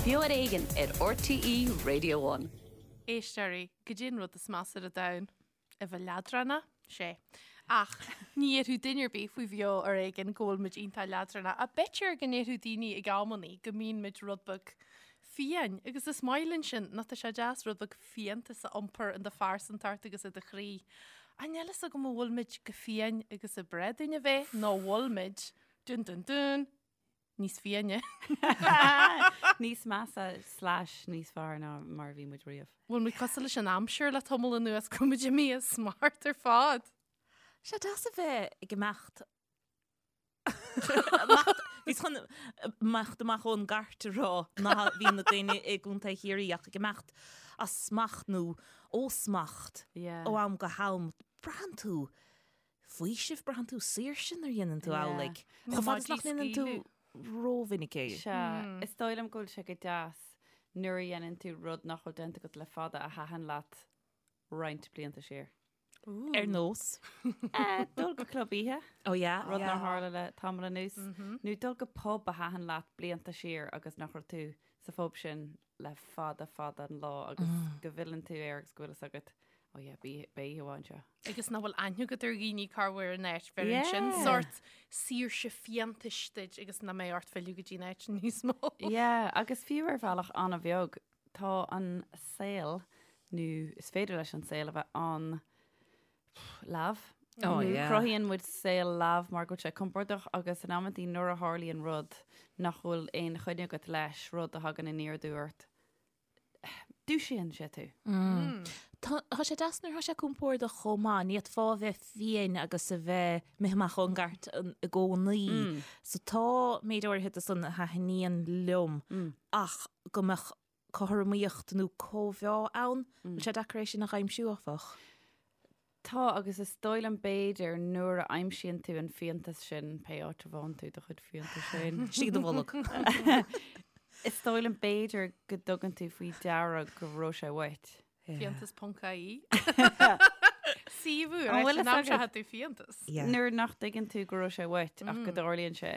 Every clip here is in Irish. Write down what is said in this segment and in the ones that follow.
Beo ar Éigean ar RTÉ Radio One. Éisteoirí, goidé an rud is measa ar an domhan? A bheith leadránach? Sé. Ach ní dhéarfadh duine ar bith faoi Bheo ar Éigean go bhfuil muid iontach leadránach. Ach b'fhéidir go ndéarfadh daoine ag amannaí go mbíonn muid rud beag fiáin. Agus is maith linn sin, nó tá sé deas rud beag fiántas a iompar in do phearsantacht agus i do chroí. Ach níl fhios agam an bhfuil muid chomh fiáin agus ab bhreá dúinn a bheith, nó an bhfuil muid, dun dun dun, níos fiáine. Níos measa slash níos fearr ná mar a bhí muid riamh. Bhfuil muid cosúil leis an aimsir le tamall anuas go bhfuil muid imithe as smacht ar fad. Sé deas a bheith ag imeacht Bhíos chun imeacht amach ón gcairt a rá ná bhí na daoine i gContae Chiarraí ach ag imeacht as smacht nó ó smacht ó am go ham. Braitheann tú faoiseamh, braitheann tú saoirse nuair a dhéanann tú amhlaidh. Chomh fada is nach ndéanann tú rómhinic é. Sea, is dóigh liom go bhfuil sé go deas nuair a dhéanann tú rud nach bhfuil déanta agat le fada a thaitin leat roinnt blianta siar. Ar nós? Dul go club oíche. Oh yeah. Rud nár tharla le tamall anuas. Nó dul go pub a thaitin leat blianta siar agus nach raibh tú sa phub sin le fada fada an lá agus go bhfilleann tú air agus go bhfuil fhios agat, oh yeah, beidh oíche mhaith anseo. Agus nach bhfuil aithne agat ar dhaoine corruair in áit, bheireann sin sórt saoirse fiántais duit agus nach mbeidh ort filleadh go dtí an áit níos mó. Yeah, agus fiú ar bhealach an-bheag, tá an saol, nó is féidir leis an saol a bheith an leamh. Oh, yeah. Cruthaíonn muid saol leamh mar go bhfuil sé compordach agus in amantaí nuair a tharlaíonn rud nach bhfuil aon choinne agat leis, rud a thagann aniar aduaidh ort, dúisíonn sé tú. Mm. Tá tá sé deas nuair atá sé compordach chomh maith, ní fhéadfá a bheith fiáin agus a bheith imithe amach ón gcairt i gcónaí. Mm. So tá méid áirithe de san a thaitníonn liom mm. ach go mbeadh cothromaíocht nó cóimheá ann. Bhfuil sé deacair é sin a aimsiú, áfach? Tá, agus is dóigh liom b'fhéidir nuair a aimsíonn tú an fiántas sin, pé áit a bhfághann tú do chuid fiántais féin. Istigh i do bholg. Is dóigh liom b'fhéidir go dtugann tú faoi deara go raibh sé uait. Fiántas ponc ie. Suíomh ar an aimseoidh tú fiántas. Nuair nach dtuigeann tú go raibh sé uait ach go dtarlaíonn sé.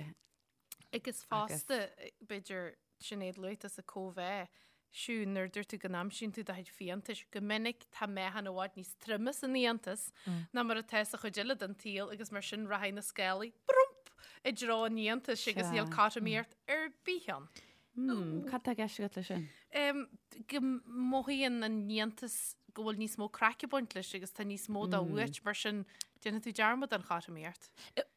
Agus fosta, b'fhéidir, Sinéad luaigh tusa cóimheá, Siún, nuair a dúirt tú go n-aimsíonn tú do chuid fiántais, go minic tá meáchan i bhfad níos troime san fhiántas ná mar atá sa chuid eile den tsaol agus mar sin rachaidh na scálaí, brump, i dtreo an fhiántais agus níl cothromaíocht ar bith ann. Cad tá i gceist agat leis sin? Go mothaíonn an fhiántas go bhfuil níos mó craic ag baint leis agus tá níos mó dó uait, mar sin déanfaidh tú dearmad den chothromaíocht.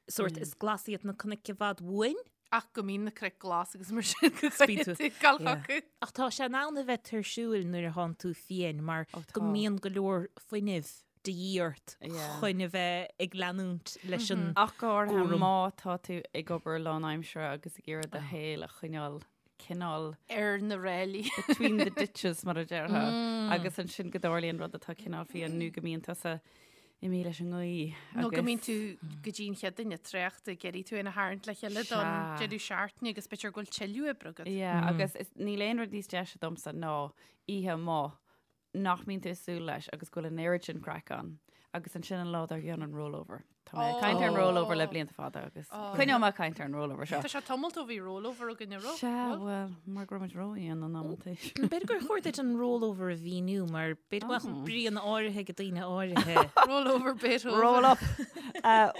Sórt, is glas iad na cnoic i bhfad uainn. Ach go mbíonn na cnoic glas agus mar sin go gcaithfidh tú dul chucu. Ach tá sé in ann a bheith tuirsiúil nuair atánn tú fiáin mar go mbíonn go leor fuinnimh de dhíth ort chun a bheith ag leanúint leis an Ach go háirithe má tá tú ag obair lánaimseartha agus ag iarraidh do shaol a choinneáil cineál. ar na ráillí. between the ditches mar a déarfá agus ansin go dtarlaíonn rud atá cineál fiáin nó go mbíonn tusa imithe leis an ngaoth Nó go mbíonn tú go dtí an chéad duine traochta ag iarraidh tú féin a tharraingt le chéile don deireadh seachtaine agus b'fhéidir go bhfuil tuilleadh oibre agat. Yeah, agus níl aon rud níos deise domsa ná oíche amuigh nach mbíonn tú ag súil leis agus go bhfuil an oiread sin craic ann agus ansin an lá dár gcionn an rollover. Tá mé ag caint ar an rollover le blianta fada agus coinneoidh mé ag caint ar an rollover seo. Tá sé tamall ó bhí rollover againn an raibh? Sea, bhuel, mar go raibh muid rófhiáin in amantaí. B'fhéidir gur chóir duit an rollover a mhíniú mar b'fhéidir go mbeadh bríonna áirithe ag daoine áirithe. Rollover Beethoven. Roll up!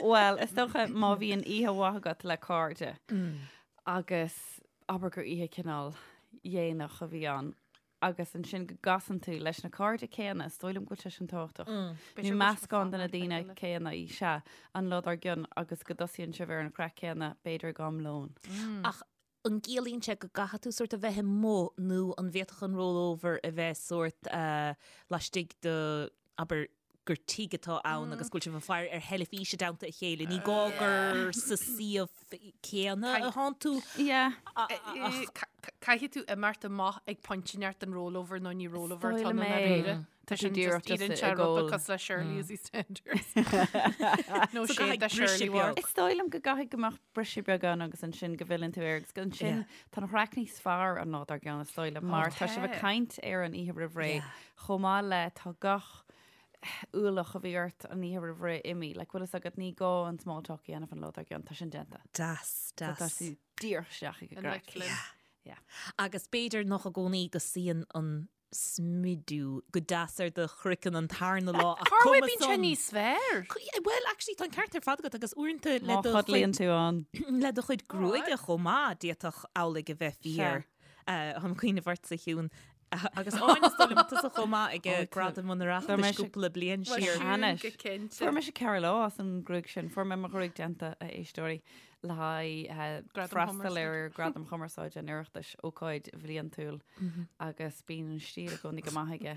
Bhuel, is dócha má bhíonn oíche mhaith agat le cairde agus abair gur oíche cineál dhéanach a bhí ann, agus ansin go gcasann tú leis na cairde céanna, is dóigh liom go bhfuil sé sin tábhachtach, nó meascán de na daoine céanna, sea, an lá dár gcionn agus go dtosaíonn sibh ar an chraic céanna, b'fhéidir ag am lóin. Ach an gciallaíonn sé go gcaithfidh tú sórt a bheith amuigh nó an bhféadfadh an rollover a bheith sórt laistigh de, abair, gur tigh atá ann agus go bhfuil sibh ag faire ar theilifís i dteannta a chéile. Ní gá gur sa suíomh céanna atánn tú. Yeah. Caithfidh tú imeacht amach ag pointe inteacht den rollover nó ní rollover atá ann i ndáiríre. Tá sin just iarrann sé rud beag cosúil le Shirley as EastEnders. Nó sé de Shirley Ward. Is dóigh liom go gcaithfidh go mbeadh briseadh beag ann agus ansin go bhfilleann tú air agus ansin tá an chraic níos fearr an lá dár gcionn is dóigh liom mar tá sibh ag caint ar an oíche roimh ré chomh maith le tá gach ualach a bhí ort an oíche roimh ré imithe. Like, bhfuil fhios agat, ní gá an small talk a dhéanamh an lá dár gcionn, tá sin déanta. Deas, deas. Tá tú díreach isteach ag an gcraic. Yeah. Agus b'fhéidir nach i gcónaí go suíonn an smidiú go deas ar do chraiceann an tarna lá ach Cá cuma bhfuil bíonn sé san. níos fearr? Bhuel, actually, tá an ceart ar fad agat agus uaireanta le Má do chodlaíonn chuid tú ann. le do chuid gruaige chomh maith, d'fhéadfadh amhlaidh a bheith fíor. Táim ag cuimhneamh ortsa, a Shiún. Agus Áine, is dóigh liom tusa chomh maith ag Gradaim an Oireachtais cúpla bliain siar. Anois. Go cinnte. Fuair mise 4 lá as an ghruaig sin. Fuair mé mo ghruaig déanta, a éisteoirí, le haghaidh Gradam freastal Chumarsáide. ar Gradam Chumarsáide an Oireachtais, ócáid bhliantúil, agus bíonn an stíl i gcónaí go maith aige.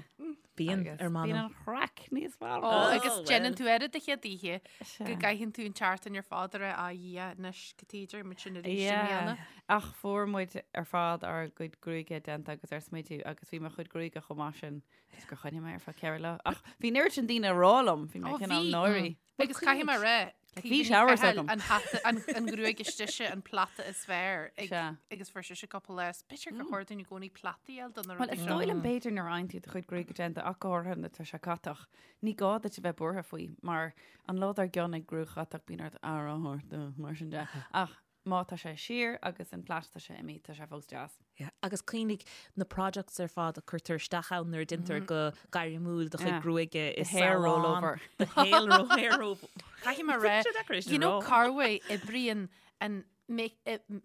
Bíonn, Agus ar m'anam. Bíonn an chraic níos fearr. Ó, agus Oh, déanann well. tú air do chéad oíche Sea. go gcaitheann tú an tseachtain ar fad ar a Dhia anois go tíidir muid sin arís i Yeah. mbliana. Ach fuair muid ar fad ár gcuid gruaige déanta agus ar smidiú agus bhí mo chuid gruaige chomh maith sin just gur choinnigh mé ar feadh 4 lá. Ach bhí an oiread sin daoine ag rá liom, bhí mé Ó, cineál bhí. náirí. Agus caithfidh mé rá, Like, bhí showers agam. An hata, an, an ghruaig istigh se an plata is fearr ag, Sea. agus fuair sise cúpla lá. B'fhéidir gur chóir dúinn i gcónaí plataí a fháil do na Well, rudaí is seo. dóigh liom b'fhéidir nuair a fhaigheann tú do chuid gruaige déanta ach go háirithe nuair atá sé catach, ní gá duit a bheith buartha faoi mar an lá dár gcionn ag gruaig chatach bíonn ort aire a thabhairt dó, mar sin de. Ach má tá sé siar agus an plait tá sé imithe, tá sé fós deas. Yeah. Agus cuimhnigh na products ar fad a cuirtear isteach ann nuair a déantar go gairmiúil do chuid gruaige i The hair salon. rollover. The hair ro- hair rollover. Caithfidh mé rá, Sé deacair é sin you know a rá. Carway oibríonn an make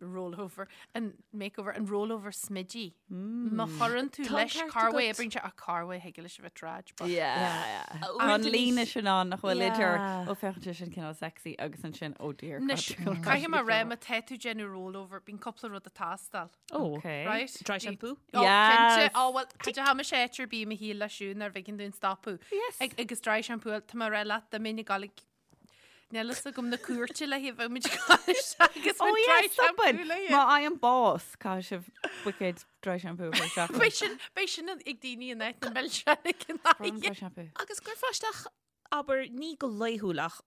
rollover, an makeover, an rollover smidí. Má chuireann tú Tá an leis ceart Carway agat. oibríonn sé ach Carway thig leis a bheith trad. but- Yeah. Uaireanta An ní- líne sin ann nach bhfuil idir Yeah. ó féachann sé sin cineál sexy agus ansin oh dear. Anois, God, caithfidh mé rá má tá tú déanamh rollover, bíonn cúpla rud ag teastáil. Oh, Okay. Right? Dry Bhí- shampoo? Oh, Yes. cinnte. Oh, well, tá ha sé ar bí me hí le siún ar bhigin dún stopadh. Yes. Ag, agus dry shampoo, tá mé rá leat dá mbeinn ag gabháil ag Níl fhios agam na cúirte le haghaidh bheith muid agus Oh dry yeah, shampoo stopin. le Má fhaighim bás, caithfidh sibh buicéad dry shampoo a chur isteach. Beidh sin beidh sin ag daoine in áit na milseáin ag an Dry aghaidh. shampoo. Agus gcuirfeá isteach abair ní go laethúil ach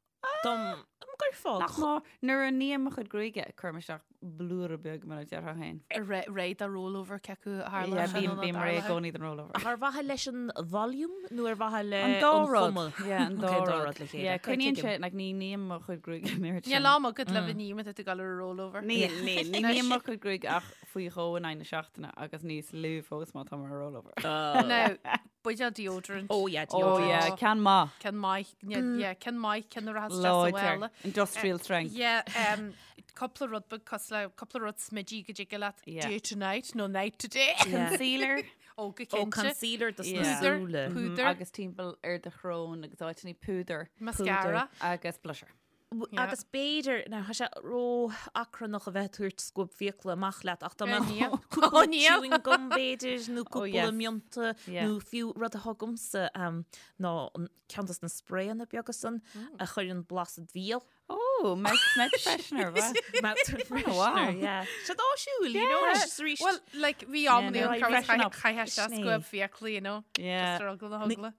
dom gcuirfeá Nach má nuair a ním mo chuid gruaige cuirim isteach blúire beag mar a déarfá féin. Réidh do rollover cé acu a tharla Yeah, sin bím nó bím réidh i tarlaithe. gcónaí don rollover. Ach ar mhaithe leis an volume nó ar mhaithe le An dá an rud. chuma? Yeah, an dá Okay, rud. rud le chéile. Yeah, Okay, coinníonn tuigim. sé, like, ní ním mo chuid gruaige an oiread Níl sin. am agat le bheith ag ní má tá tú ag dul ar rollover. Ní ní ní ním mo chuid gruaige ach faoi dhó in aghaidh na seachtaine agus níos lú fós má táim ar rollover. Now, buidéal deodorant. Oh yeah, Oh deodorant. yeah, ceann maith. Ceann maith, yeah, ceann maith, ceann a rachas isteach sa Láidir. bhaile. Industrial strength. Yeah, cúpla rud beag cosúil le cúpla rud smidí go dtig leat Yeah. day to night nó night to day. Concealer. Ó go Ó cinnte. concealer dos na Yeah. súile. Púdar. Agus timpeall ar do shrón agus áiteanna púdar. Mascara. Agus blusher. Yeah. Agus b'fhéidir now tá sé ró-achrannach a bheith ag tabhairt scuab fiacla amach leat ach dá mbeadh Níl. cúpla Ó, níl. chewing gum b'fhéidir nó Oh, cúpla yes. mionta Yeah. nó fiú rud atá agamsa um, ná an ceann dos na sprayanna beaga san a chuireann blas id bhéal. Oh, mouth, mouth freshener, wa? Mouth freshener, wow. yeah. Sé áisiúil, you know, Yeah. is arís. Well, like, bhí am Yeah, no, ní freshen up. chaith sé Sin é. scuab fiacla, you know. Yeah. Just ar eagla na heagla.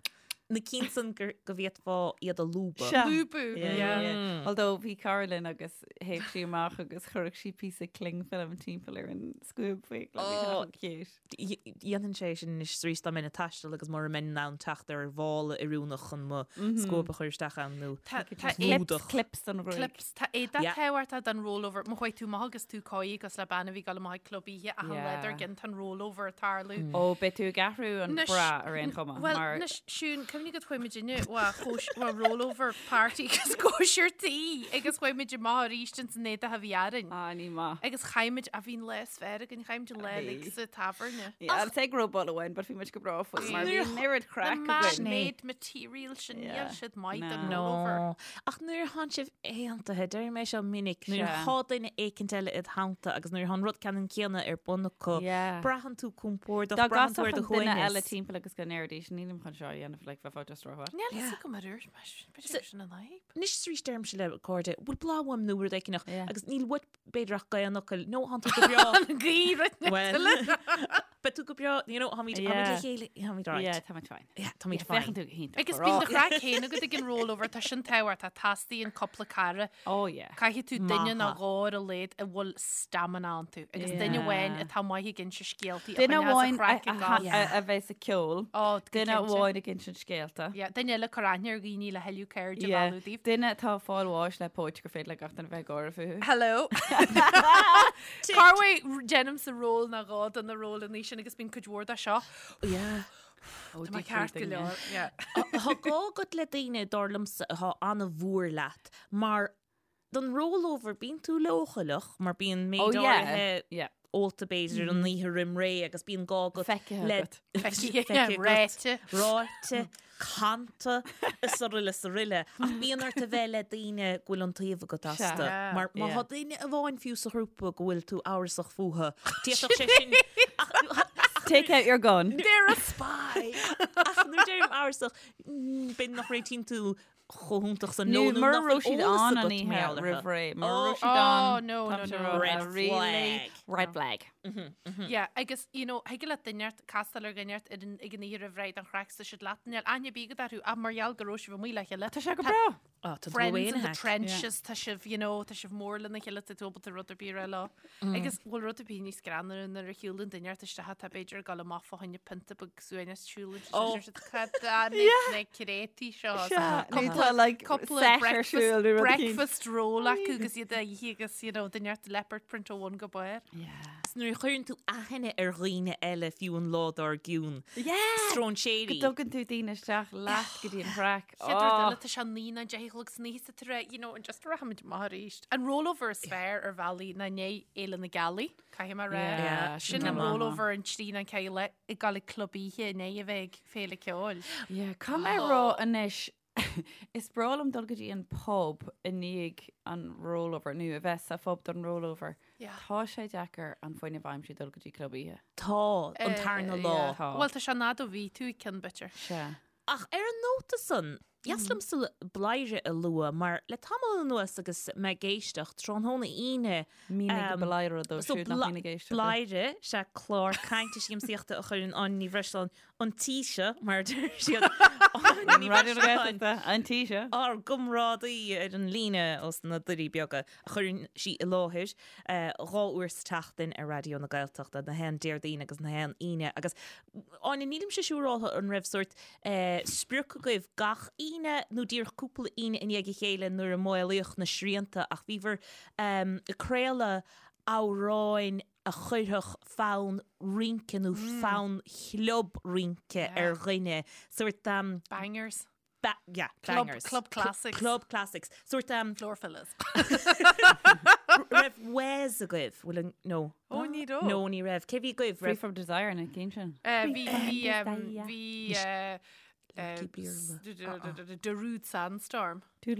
Na cinn san go bhféadfá iad a lúbadh. Sea. Lúbadh, Yeah, yeah. yeah, yeah. Although bhí cara linn agus théadh sí amach agus chuirfeadh sí píosa cling film timpeall ar an scuab fiacla. Bhí sé Oh. chomh cute. Dhéanfainn sé sin anois is arís dá mbeinn ag taisteal agus mura mbeinn in ann teacht ar mhála oiriúnach chun mo scuab a chur isteach ann nó Tá tá Just é- lúdach. Clips don ghruaig. clips tá éadach Yeah. tábhachtach don rollover. Má chuaigh tú amach agus tú cóí agus le bean a bhí ag dul amach ag club oíche achan Yeah. lá dár gcionn tá an rollover ag tarlú. Ó, beidh tú ag athrú an Anois- bra ar aon chuma. Well, mar anois, Siún, cuimhnigh go chuaigh muid inniu wa chóis wa rollover party agus cóisir tí agus chuaigh muid amach arís ins an éadach a bhí orainn. Ah, ní maith. Agus chaith muid a bhí an lá is fearr againn, chaith muid an lá Bhí. uilig sa tábhairne. Yeah, I'll say go raibh bull amháin, but bhí muid go breá faoi mar bhí an oiread Na craic againn. man-made material sin níl Yeah. siad maith don No. rollover. No. Ach nuair atánn sibh aontaithe, deir mé seo minic, nuair Sea. atá duine éicint eile id theannta agus nuair atá an rud ceannann céanna ar bun acu, Yeah. braitheann tú compordach, Dá braitheann tú ar gcasfadh do an duine eile shuaimhneas. timpeall agus go ndéarfaidís, nílim chun seo a dhéanamh, like, bheifeá just rómhaith. Níl fhios agam ar úirt, mar b'fhéidir sin an fhadhb. Anois is arís deirimse le cairde, bhfuil bláth uaim nó rud éigineach, Yeah. agus níl uait b'fhéidir ach gaoth an fhocail, nó thánn tú go breá. An gaoth Well, but Beidh tú go breá, you know, táimid táimid le chéile, táimid alright. Yeah, táimid fine. Yeah, táimid fine. Féachann tú go hiontach. Agus bíonn do chraic féin agat ag an rollover, tá sin tábhachtach, teastaíonn cúpla cara. Oh yeah. Caithfidh tú duine nó dhó ar a laghad a bhfuil stamina iontu agus duine amháin atá maith ag inse scéaltaí Duine amháin a bheas ag ceol. Duine amháin ag insint scéalta. Yeah, duine eile ag cur aithne ar dhaoine le thuilleadh cairde a mhealladh daoibh. Duine atá ag fáil bháis le póit gur féidir le gach duine bheith ag gáire fúthu. Hello. Corruair déanaimse ról nó dhó de na rólanna sin agus bíonn cuid mhór de seo. Yeah. Tá mé ceart go leor. Yeah. Tá gá agat le daoine, dar liomsa, atá an-mhór leat, mar don rollover bíonn tú leochaileach mar bíonn méid Oh, yeah. áirithe Yeah. ólta b'fhéidir an oíche roim ré agus bíonn gá agat Feicthe le agat. Feicthe, agat, ráite. ráite, canta, is araile is araile. Ach bíonn ort a bheith le daoine go bhfuil iontaoibh agat astu. Sea. Mar má Yeah. tá duine amháin fiú sa ghrúpa go bhfuil tú amhrasach fúthu, d'fhéadfadh sé sin ach Take out your gun. They're a spy. ach nuair a deirim amhrasach, b'fhéidir nach réitíonn tú chomh hiontach san Nó leo nó mura nach raibh bhfuil siad eolas ann an agat oíche mar gheall orthu. roimh ré. Mura Oh, raibh siad ann, oh, no, tá no, sé no. rá, Red really flag. Red flag. Yeah, agus, you know, thig le duine inteacht castáil ar dhuine inteacht ar an, ag an oíche roimh ré don chraic tá siad leat, níl aithne ar bith agat orthu ach mar gheall go raibh sibh amuigh le chéile. Tá sé go breá. Oh, tá tú Friends away in the hack. trenches, tá sibh, you know, tá sibh mór lena chéile, tá tú ábalta rud ar bith a rá leo. Agus bhfuil rud ar bith níos greannmhaire nuair a shiúlann duine inteacht isteach atá b'fhéidir ag dul amach fá choinne pionta beag suaimhneas siúlann Oh. siad cad na créataí seo. Sea, nó Cúpla- tá, like, cúpla set ar breakfast- siúl nó rud eicínt. breakfast roll acu agus iad á ithe agus, you know, duine inteacht leopard print ó bhun go barr. Yeah. Is nuair a chuireann tú aithne ar dhaoine eile fiú an lá dár gcionn. Yeah! Stróinséirí. Go dtugann tú daoine isteach leat go dtí an chraic. Chéad rud Oh. eile, tá sé 9 nó 10 a chlog san oíche sa tar you know, and just rachaimid amach arís. An rollover is fearr ar bhealaí ná i ndiaidh Fhéile na Gealaí, caithfidh mé a rá. Yeah, Sin sin an go maith. rollover an trí nó ceathair le ag dul ag club oíche i ndiaidh a bheith ag féile ceoil. Yeah, caithfidh mé a rá anois, is breá liom dul go dtí an pub i ndiaidh an rollover, nó a bheith sa phub don rollover. Yeah. Tá sé deacair an fuinneamh a aimsiú dul go dtí club oíche. Tá, an tarna lá. Yeah. Tá. Bhuel, tá sé an fhad ó bhí tú ag ceann b'fhéidir. Sea. Ach ar an nóta san, dheas liomsa Bladhaire a lua mar le tamall anuas agus mé ag éisteacht, tráthnóna Aoine, Mínigh Bladhaire dóibh so siúd nach mbíonn ag éisteacht. Bladhaire, sea clár cainte siamsaíochta a chuireann Áine Ní Bhreisleáin an tí seo, mar a deir siad, Áine Ní Raidió na Bhreisleáin, Gaeltachta, an tí seo. ár gcomrádaí ar an líne ós na Doirí Beaga, a chuireann sí i láthair 2 uair sa tseachtain ar Raidió na Gaeltachta, na haon Déardaoin agus na haon Aoine. Agus Áine, nílimse siúráltha an raibh sórt sprioc agaibh gach Aoine nó díreach cúpla Aoine i ndiaidh a chéile nuair a maolaíodh na srianta ach bhíobhair ag craoladh amhráin a chuirfeadh fonn rince nó fonn chlub rince ar dhuine, sórt. Bangers. Ba yeah, Club, bangers. club classics. Club classics. Sórt um, Floor fillers. raibh Wes agaibh? Bhfuil an no. Ó, ní raibh. No, ní raibh. Cé bhí agaibh? Free Raibh from Desire na cinn sin. Bhí, bhí, um, bhí, uh, Lucky Beerlao. Darude Sandstorm. Bhí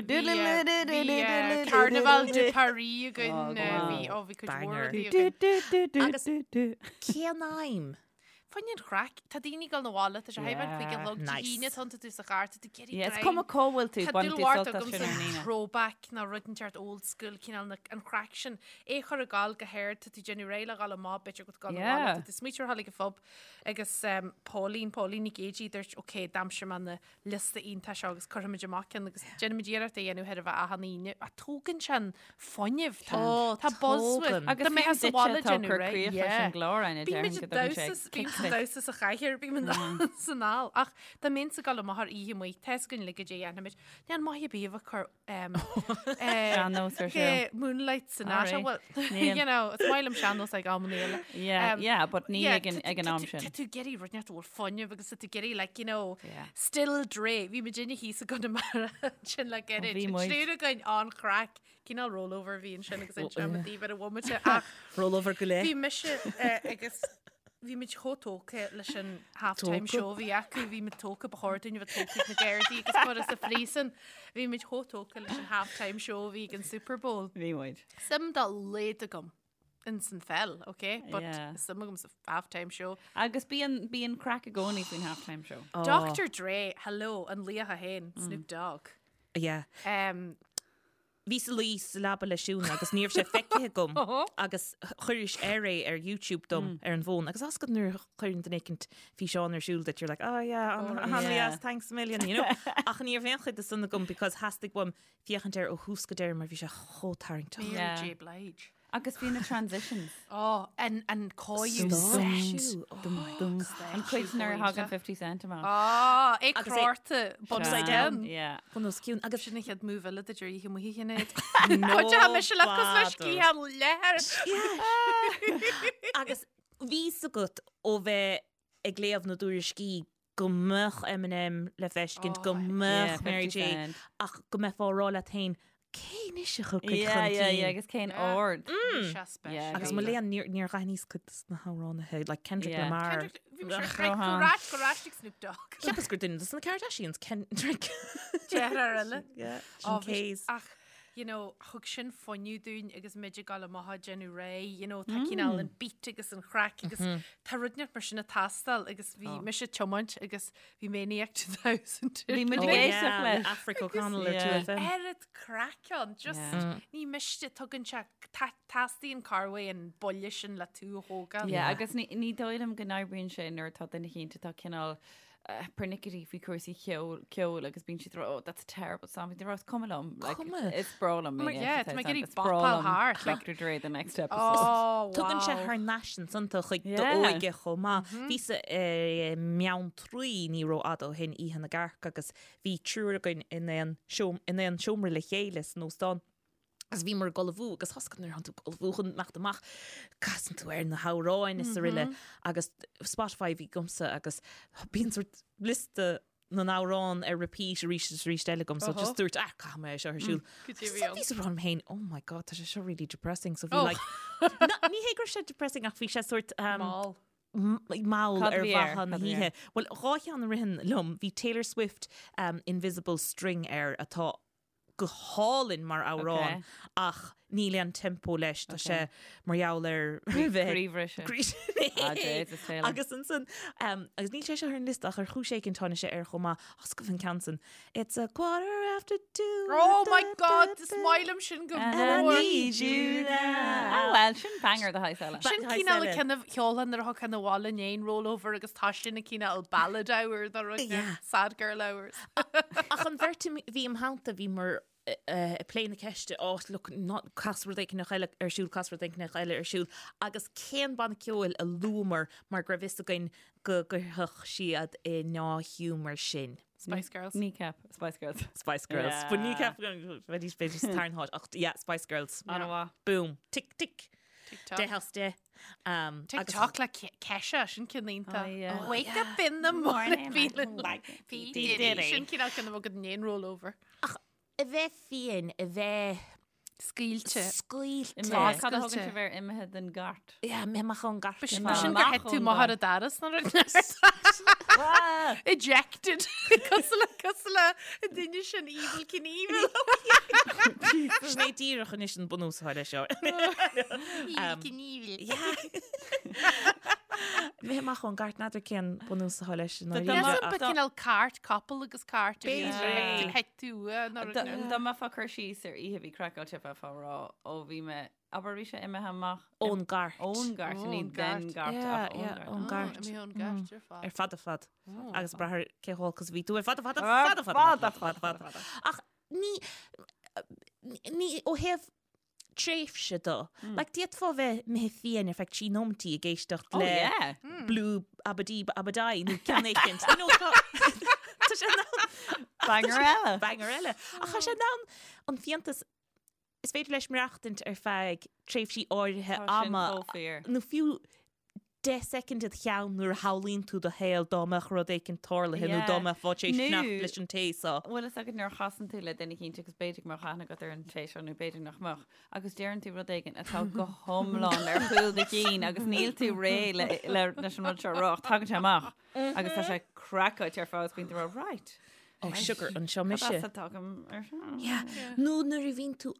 Bhí Carnaval de Paris againn. Bhí, ó, bhí cuid mhór Banger. rudaí againn. Agus cén aidhm? Fá choinne an chraic, tá daoine ag dul 'na bhaile, tá sé thar a 5 a chlog, Dé Nice. hAoine, tánn tú sa charr, tá tú ag iarraidh Yeah, it's greim. cuma cá bhfuil tú, Tá baineann dúil tú mhór sult as agamsa sin ar an Aoine. throwback nó rud inteacht old school, cineál na, an chraic sin. É a chur ag gabháil go hard, tá tú ag déanamh réidh le dhul amach, b'fhéidir go dul 'na bhaile, Yeah. tá tú smaoitiú ar dhul ag an phub agus um, Pauline, Pauline Nic Géidigh, dúirt, ok, d'aimsigh mé na liosta iontach seo agus cuirfimid amach ceann agus déanaimid iarracht é a dhéanamh chóir a bheith achan Aoine. Ach tógann sé an fuinneamh. Tá Ó, tá buzz uait. tógann. Agus Tá mé fiú sa duitse bhaile atá ag déanamh cur réidh. críoch leis an gclár, Áine, Bímid déarfainn go ag dtugann sé damhsa, bím kick sa duit. damhsa sa chathaoir, bím san ál. Ach dá mbeinnse ag dul amach ar oíche amuigh, tá 'fhios againn uilig goidé a dhéanfaimid. Níl maith ar bith a bheith ag cur um, Sean-nós ar siúl. Moonlight Sonata. Alright. Well, Níl. you know, is maith liom sean-nós ag amanna eile. Yeah, yeah, but ní yeah, ag an- tá- ag an tá am tú- sin. Tá tú ag iarraidh rud inteacht a bhfuil fuinneamh agus tá tú ag iarraidh, like, you know, Yeah. Still Dre. Bhí muid inne thíos i gConamara ansin le gairid. bhí An muid. triúr againn an-chraic. Cineál rollover a bhí ansin agus inseoidh mé daoibh ar an bhomaite ach Rollover go leith. bhí mise eh, agus bhí muid chomh tógtha leis an half-time Tógtha? show a bhí acu, bhí muid tógtha, ba chóir dúinn a bheith tógtha ag na Gardaí agus curtha sa phríosún. Bhí muid chomh tógtha leis an half-time show a bhí ag an Super Bowl. Bhí muid. Suim dá laghad agam in san pheil, ok? But Yeah. suim agam sa half-time show. Agus bíonn bíonn craic i gcónaí faoin half-time show. Dr. Dre, hello, an laoch é féin, Snoop Dogg. Yeah. Um, Bhíos ag luí sa leaba le Siún agus ní raibh sé feicthe agam agus chuiris air é ar YouTube dom ar an bhfón agus tá a fhios agat nuair a chuireann duine éicint físeán ar siúl duit you're like oh yeah an-dheas thanks a million you know ach ní raibh aon chuid de san agam because theastaigh uaim féachaint air ó thús go deireadh mar bhí sé chomh tarraingteach. Mary J Blige. Agus bhí na transitions. Ó, an, an cóiriú set. An cuid nuair a thagann 50 Cent amach. Á, é Agus é crárta upside down. Yeah. Bun os cionn. Agus Sin an chéad move eile duit ar oíche amuigh a Shinéad. No mise le cos leis sciath leathair. Agus bhí a fhios agat ó bheith ag léamh na dtuairiscí go mbeadh Eminem le feiscint, go mbeadh Mary J, ach go mbeifeá ag rá leat féin, cé anois a thiocfaidh chun cinn? Yeah, yeah, agus cén ord? Yeah. Agus mo léan, níor dh'aithníos cuid de na hamhránaithe, like Kendrick Lamar. Kendrick, bhí mise ag go rais, go rais ag Snoop Dogg. Cheapas gur duine de na Kardashians, Kendrick. Deartháir eile. Yeah, sin K's. Ach, you know, thug sin fuinneamh dúinn agus muid ag dul amach ag déanamh réidh, you know, tá cineál an beat agus an chraic agus tá rud inteacht mar sin ag teastáil agus bhí mise ag tiomáint agus bhí Maniac 2000. Bhí muid ag Oh, éisteacht yeah, leis. Aifric O'Connell ar Yeah. 2FM. Oiread craic ann, just ní miste, tugann sé, teastaíonn corruair an buille sin le tú a thógáil. Yeah, agus ní ní dóigh liom go n-oibríonn sé nuair atá duine éicint atá cineál pernickety faoi chúrsaí ceoil ceoil agus bíonn siad ag rá, oh, that's a terrible song. Bíonn siad ag rá, is cuma liom. Like, Cuma. Is breá liom. Mar, yeah, tá mé ag iarraidh Is breá bopáil liom thart, like- Dr. Dre, the next episode. Oh, Tugann sé wow. thar n-ais ansan tú chuig Yeah. d'óige chomh maith. Bhíos i mBeanntraí ní rófhada ó shin Oíche na gCearc agus bhí triúr againn in aon seom- in aon seomra le chéile san óstán. Agus bhíomar ag ullmhú agus tá a fhios agat nuair atánn tú ag ullmhú chun imeacht amach, casann tú ar na hamhráin is araile agus Spotify a bhí agamsa agus bíonn sort liosta na n-amhrán ar repeat arís is arís eile agam so just dúirt ah caithfidh mé é seo ar siúl. Go dtí So bhíos ag rá liom féin, oh my god, tá sé seo really depressing so bhí Oh. like Na, ní hé go raibh sé depressing ach bhí sé sort um, Mall. mall Cad ar a bhí air? mhaithe na Cad a bhí hoíche. air? Bhuel, dhá cheann a ritheann liom, bhí Taylor Swift um, Invisible String air atá go hálainn mar amhrán ach níl aon tempo leis, tá sé mar gheall ar bheith Croíbhriseadh. Ah, Jesus, Taylor. Agus ansan, um, agus níl sé seo ar an liosta ach ar chúis éigin tháinig sé air chomh maith, tá a fhios agaibh an ceann san. It's a quarter after two. Oh my God, is maith liom sin go And I mór. need you now. Ah, well, sin banger de shaghas eile. Sin cineál an ceann a cheolfá nuair a thiocfá abhaile i ndiaidh an rollover agus tá sin an cineál ballad hour dá rud Yeah. sad girl hours. Ach an bheirt a bhí im theannta bhí muid ag plé na ceiste, oh look, not cas rud éicint eile ar siúl, cas rud éicint eile ar siúl, agus cén banna ceoil a luamar mar go raibh fhios againn go gcuirfeadh siad i ndea-ghiúmar sinn. Spice Girls. Kneecap, Spice Girls. Spice Girls. Yeah. But Kneecap, bheidís b'fhéidir sa tarna háit, ach yeah, Spice Girls. An-mhaith. Boom. Tick, tick. TikTok. Deich as deich. Um, agus- TikTok le Kesha, sin ceann iontach. Oh, yeah. Wake up in the morning feeling like P. P. Diddy. Diddy. Sin cineál ceann a bheadh i ndiaidh an rollover. A bheith fiáin, a bheith Scaoilte. scaoilte. Imithe. Cad a thugann Scaoilte. sibh ar imithe den gcairt? Yeah, imithe amach ón gcairt. B'shin Amach gur thit tú ón amach ar gcairt. an doras nó rud Ejected. Cosúil le cosúil le an duine sin Evel Knievel. Sin é díreach anois an bunús atá leis seo. Evel Knievel. Imithe amach ón gcairt n'fheadar cén bunús atá leis an Tá- ndáiríre, Measaim ach- ba cineál cairt, capall agus cairt a bhí B'fhéidir. Thit tú uaidh nó rud Dá nó. dá mbeifeá ag cur síos ar oíche a bhí craiceáilte bheifeá ag rá ó bhí mé abair bhí sé imithe amach Ón gcairt. ón gcairt ní Ón den gcairt. gcairt Yeah, ach ón yeah, gcairt. ón gcairt. Imithe ón gcairt ar fad. Ar fad ar fad. Agus brath ar cé chomh olc is a bhí tú ar fad ar fad ar Ar fad ar fad ar fad ar fad. Ach ní ní ó thaobh tréimhse de. Like d'fhéadfá bheith imithe fiáin ar feadh trí nóimeataí ag éisteacht Oh le yeah. Blue Abadí Abadai nó ceann éicint. You know, tá tá sé in ann Banger eile. banger eile. Ach tá sé in ann an fiántas is féidir leis maireachtaint ar feadh tréimhsí áirithe Tá sin ama chomh fíor. nó fiú 10 soicind id cheann nuair a shamhlaíonn tú do shaol dá mbeadh rud éicint tarlaithe nó Yeah. dá mbeifeá tar éis Nó- fanacht leis an té seo. Bhfuil fhios agat nuair a chasann tú le duine éicint agus b'fhéidir go mbeadh aithne agat ar an té seo nó b'fhéidir nach mbeadh agus deireann tú rud éigin atá go hiomlán ar chúl do chinn agus níl tú réidh le, le, leis an rud seo a rá ach tagann sé amach agus tá sé craiceáilte ar fad agus bíonn tú ag rá, right. Oh, sugar, anseo mise. Cad as a dtagaim ar seo? Yeah. Nó nuair a bhíonn tú.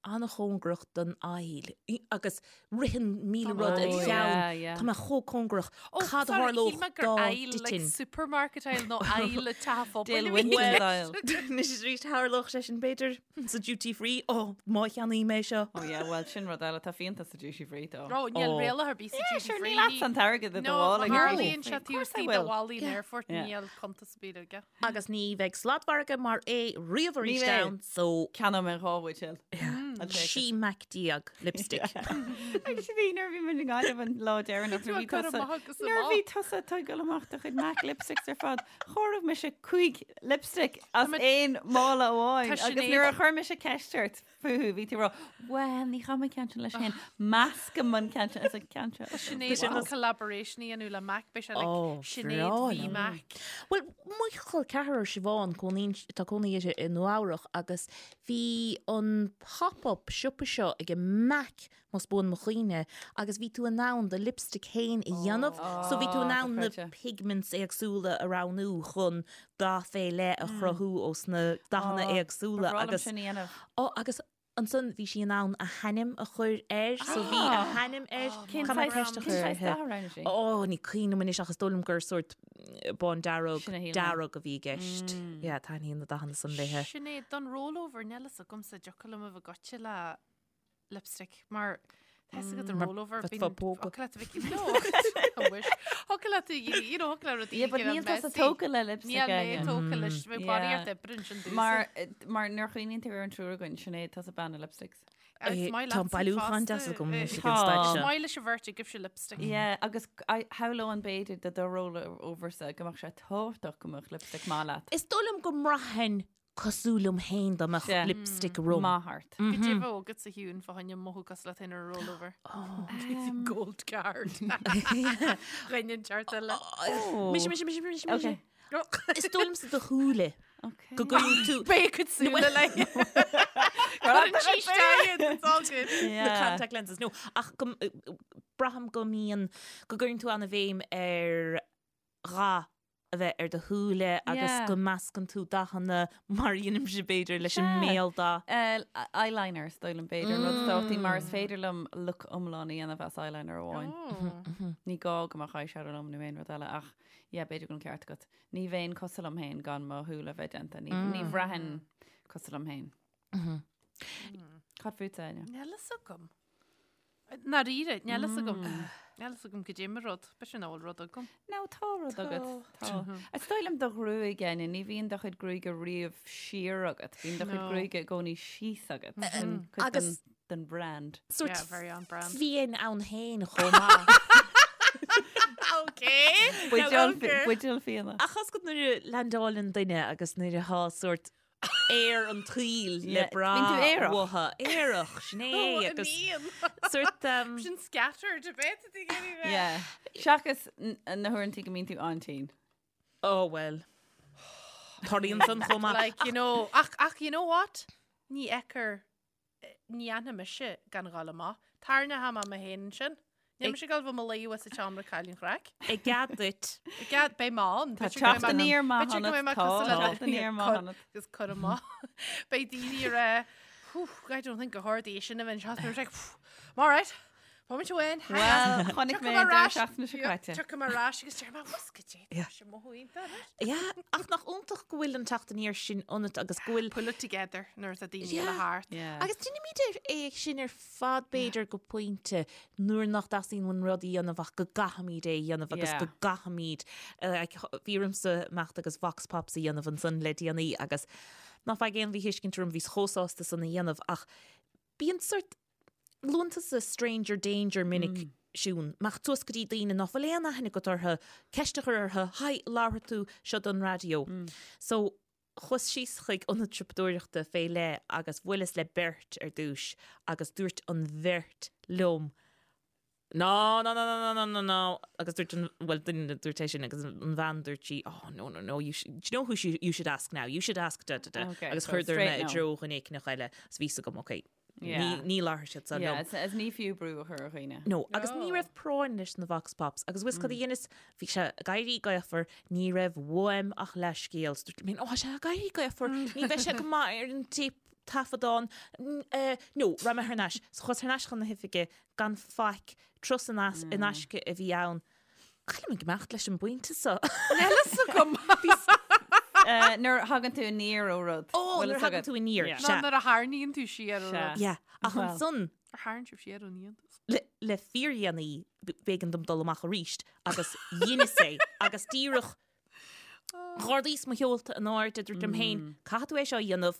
an-chóngarach don aisle agus ritheann 1000 rud i do cheann. Tá mé chomh cóngarach. Cad a tharlódh dá dtitfinn? Supermarket aisle nó aisle teach an phobail. Anois arís tharlódh sé sin b'fhéidir sa duty free. Ó, má cheannaím é seo. Ó yeah, bhuel sin rud eile, tá fíonta sa duty free though. Ó, níl riail ar bith sa duty free. Sure, níl leatsa an t-airgead i do mhála. No, tharlaíonn sé taobh istigh de bhallaí an aerfoirt, níl cuntas ar bith aige. Agus ní bheidh sladmhargadh mar é riamh arís ann, so. Ceannóidh mé 2 bhuidéal. 16 Mac lipstick. Agus bhí nuair a bhí muid i nGaillimh an lá deireanach nuair a bhí tusa nuair a bhí tusa ag tógáil amach do chuid MAC lipsticks ar fad, chomhair mise 5 lipstick as aon mála amháin agus nuair a chuir mise ceist ort fúthu, bhí tú ag rá, Bhuel, ní chaithfidh mé ceann sin leis féin, meascaim an ceann sin as an ceann seo. Tá Sinéad chun collaboration a dhéanamh le MAC, beidh sé like Sinéad v MAC. Bhuel, mo chol ceathrar Siobhán, cónaíonn, tá cónaí uirthi i Nua Eabhrach agus bhí an pop-up siopa seo ag MAC, más buan mo chuimhne, agus bhí tú in ann do lipstick féin a dhéanamh, so bhí tú in ann na pigments éagsúla a roghnú chun dath fé leith a chruthú ós na dathanna éagsúla agus Ó agus ansan bhí sí in ann a hainm a chur air so bhí a hainm air. Cén saghas dath a roghnaigh sí? Ó ní cuimhin liom anois ach is dóigh liom gur sórt bándearg, dearg a bhí i gceist. Yeah, taitníonn na dathanna san léithe. Sinéad, don rollover, níl fhios agamsa, dtiocfadh liom a bheith goite le lipstick mar tá fhios agat an rollover bíonn thiocfadh leat a bheith no I wish thiocfadh leat you know thiocfadh le rudaí Yeah, but níl tusa tógtha le lipstick Níl mé tógtha leis bheadh barraíocht oibre ansin domhsa. Mar mar nuair a chuimhníonn tú ar an triúr againn Sinéad tusa bean na lipsticks. Tá an bailiúchán deas agam anois ag an staid seo. Is maith leis an bheirt agaibhse lipstick. Yeah, agus shamhlóinn b'fhéidir do do rollover-sa go mbeadh sé tábhachtach go mbeadh lipstick maith leat. Is dóigh liom go mbraithfinn cosúil liom féin dá mbeadh lipstick orm. Maith ort. Goidé bheadh agat a Shiún fá choinne mothú cosúil leat féin ar an rollover. Gold card. Dhuine inteacht eile. Mise, mise, mise, mise, mise. Is dóigh liomsa do shúile. Go gcuireann tú. Beidh a cuid súile le. Cuireann sí isteach iad, it's all good. Na contact lenses. No, ach go braithim go mbíonn, go gcuireann tú an-bhéim ar dhath a bheith ar do shúile agus go meascann tú dathanna mar a dheinimse b'fhéidir leis an mbéaldath. Eyeliner is dóigh liom b'fhéidir an rud is tábhachtaí mar is féidir liom look iomlán a dhéanamh as eyeliner amháin. Ní gá go mbeadh eyeshadow liom nó aon rud eile ach yeah b'fhéidir go bhfuil an ceart agat. Ní bheinn cosúil liom féin gan mo shúile a bheith déanta. Ní bhraithfinn cosúil liom féin. Cad fútsa, Áine? Níl fhios agam. Ndáiríre, níl fhios agam. Níl fhios agam goidé mo rud. B'fhéidir nach bhfuil rud agam. No, tá rud agat. Tá. Is dóigh liom do ghruaig, Áine, ní bhíonn do chuid gruaige riamh siar agat. Bíonn do chuid gruaige i gcónaí síos agat. Sin cuid Agus den brand. Sórt Yeah, very on brand. fiáin ann féin chomh maith. Okay. Buidéal buidéal fíona. Ach tá fhios agat nuair a leaindeáileann duine agus nuair atá sórt aer an tsaoil le brath uathu. Aerach, sin é. Agus sórt. Sin scattered a bit a bheith. Yeah. Seachas na huaireanta go mbíonn tú an-tinn. Oh well. Tarlaíonn san chomh maith. Like, you know, ach, ach, you know what? Ní fheictear Ní fhanfaidh mise gan dhul amach. Tarraingeoidh mé mé féin ansin. Níl mise ag dul bheith i mo luí sa tseomra ag cailleadh an chraic. I gcead duit. I gcead, beidh mé ann. Tá teacht aniar maith ionat, tá teacht aniar maith ionat. Agus cur amach. Beidh daoine ag rá, whew, I don't think go hard é sin a bheith anseo. Beidh mé like, I'm all right. Moment amháin. Well, chonaic mé an deireadh seachtaine seo caite. Tiocfaidh mé ar ais agus deir mé, what's goidé, tá sé mothú iontach anois. Yeah, ach nach iontach go bhfuil an teacht aniar sin ionat agus go bhfuil. Pull it together nuair atá daoine eile thart. Yeah. Agus déanaimid é sin ar fad b'fhéidir go pointe nuair nach dteastaíonn uainn rud a dhéanamh ach go gcaithfimid é a dhéanamh agus go gcaithfimid, like, bhí ormsa imeacht agus vox pops a dhéanamh ansan le déanaí agus ná faigh aon mhíthuiscint orm, bhíos chomh sásta san a dhéanamh ach bíonn sort Luann tusa stranger danger minic, Siún. Imeacht suas go dtí daoine nach bhfuil aon aithne agat orthu, ceist a chur orthu, Hi, labharfaidh tú seo don raidió. So, chuas síos chuig ionad siopadóireachta fé leith agus bhuaileas le beirt ar dtús agus dúirt an bheirt liom, No, no, no, no, no, no, no, no, agus dúirt an, bhuel, duine dúirt é sin agus an bhean dúirt sí, oh, no, no, no, you should, do you know who you should ask now? You should ask da, da, da. Okay, Agus so chuireadar mé straight i no. dtreo dhuine éicneach eile agus bhí fhios agam, okay, Yeah. Ní labharfaidh siad san Yeah, liom. is, is ní fiú brú a chur ar dhaoine. No, agus ní raibh práinn leis na vox pops, agus bhfuil fhios cad a dheineas, bhí sé ag éirí gaofar, ní raibh uaim ach leathscéal. So dúirt mé, ó, tá sé ag éirí gaofar, ní bheidh sé go maith ar an téip. taifeadán, no, raibh mé thar n-ais. So chuas thar n-ais chun na hoifige gan faic, turas in aisce a bhí ann. Cá bhfuil mé ag imeacht leis an bpointe so? Níl a fhios agam. Nuair a thagann tú aniar ó rud. Ó, nuair a thagann tú aniar, sea. Nó nuair a tharraingíonn tú siar ó rud. Yeah, ach ansan. Ar tharraing sibh siar ón fhiántas? Le fíordhéanaí, b'éigean dom dul amach arís agus dheineas é agus díreach Dh'ardaíos mo sheolta in airde, dúirt liom féin, caithfidh tú é seo a dhéanamh,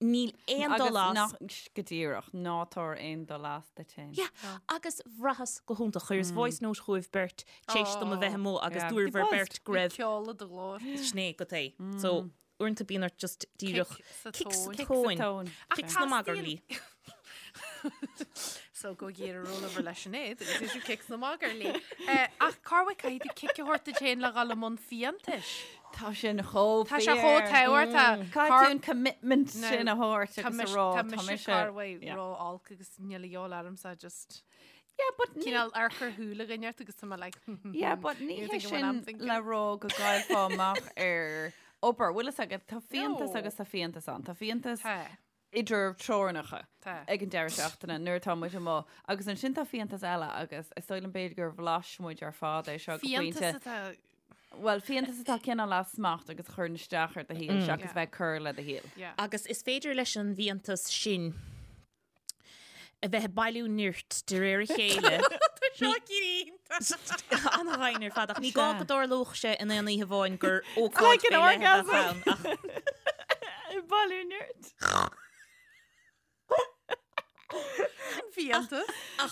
níl aon dul as. Agus nach, go díreach, ná tabhair aon dul as duit féin. Yeah, agus bhraitheas go hiontach. Chuireas voice note chugaibh beirt tar éis dom a bheith amuigh agus dúirt bhur beirt go raibh. Bhí ceol i do ghlór. Sin é go é. So, uaireanta bíonn ort just díreach Kick sa kick sa tóin. Kick sna magairlí. So go iarraidh rollover leis Sinéad agus is kick sna magairlí. Ach corruair caithfidh tú cic a thabhairt duit féin le dhul i mbun fiántais. Tá sin chomh Tá sé chomh tábhachtach. Caithfidh tú an commitment sin a thabhairt agus a rá Tá mise corruair ró-olc agus níl a dhíobháil ormsa just Yeah, but cineál amharc ar shúile dhuine ort agus tá mé like Yeah, but ní hé sin le rá go gcaillfeá amach ar obair. Bhfuil fhios agat, tá fiántas agus tá fiántas ann. Tá fiántas idir teorainneacha ag an deireadh seachtaine nuair atá muid amuigh. Agus ansin tá fiántas eile agus is dóigh liom b'fhéidir gur bhlais muid ar fad é seo go pointe. Fiántas atá... Bhuel, fiántas atá cineál as smacht agus a chuireann isteach ar do shaol seachas bheith ag cur le do shaol. Agus is féidir leis an bhfiántas sin a bheith ag bailiú nirt de réir a chéile. Tá seo iontach. An-ghainn ar fad ach ní gá go dtarlódh sé in aon oíche amháin gur ócáid fé leith a bheadh ann ach. Ag bailiú nirt. Sin fiántas.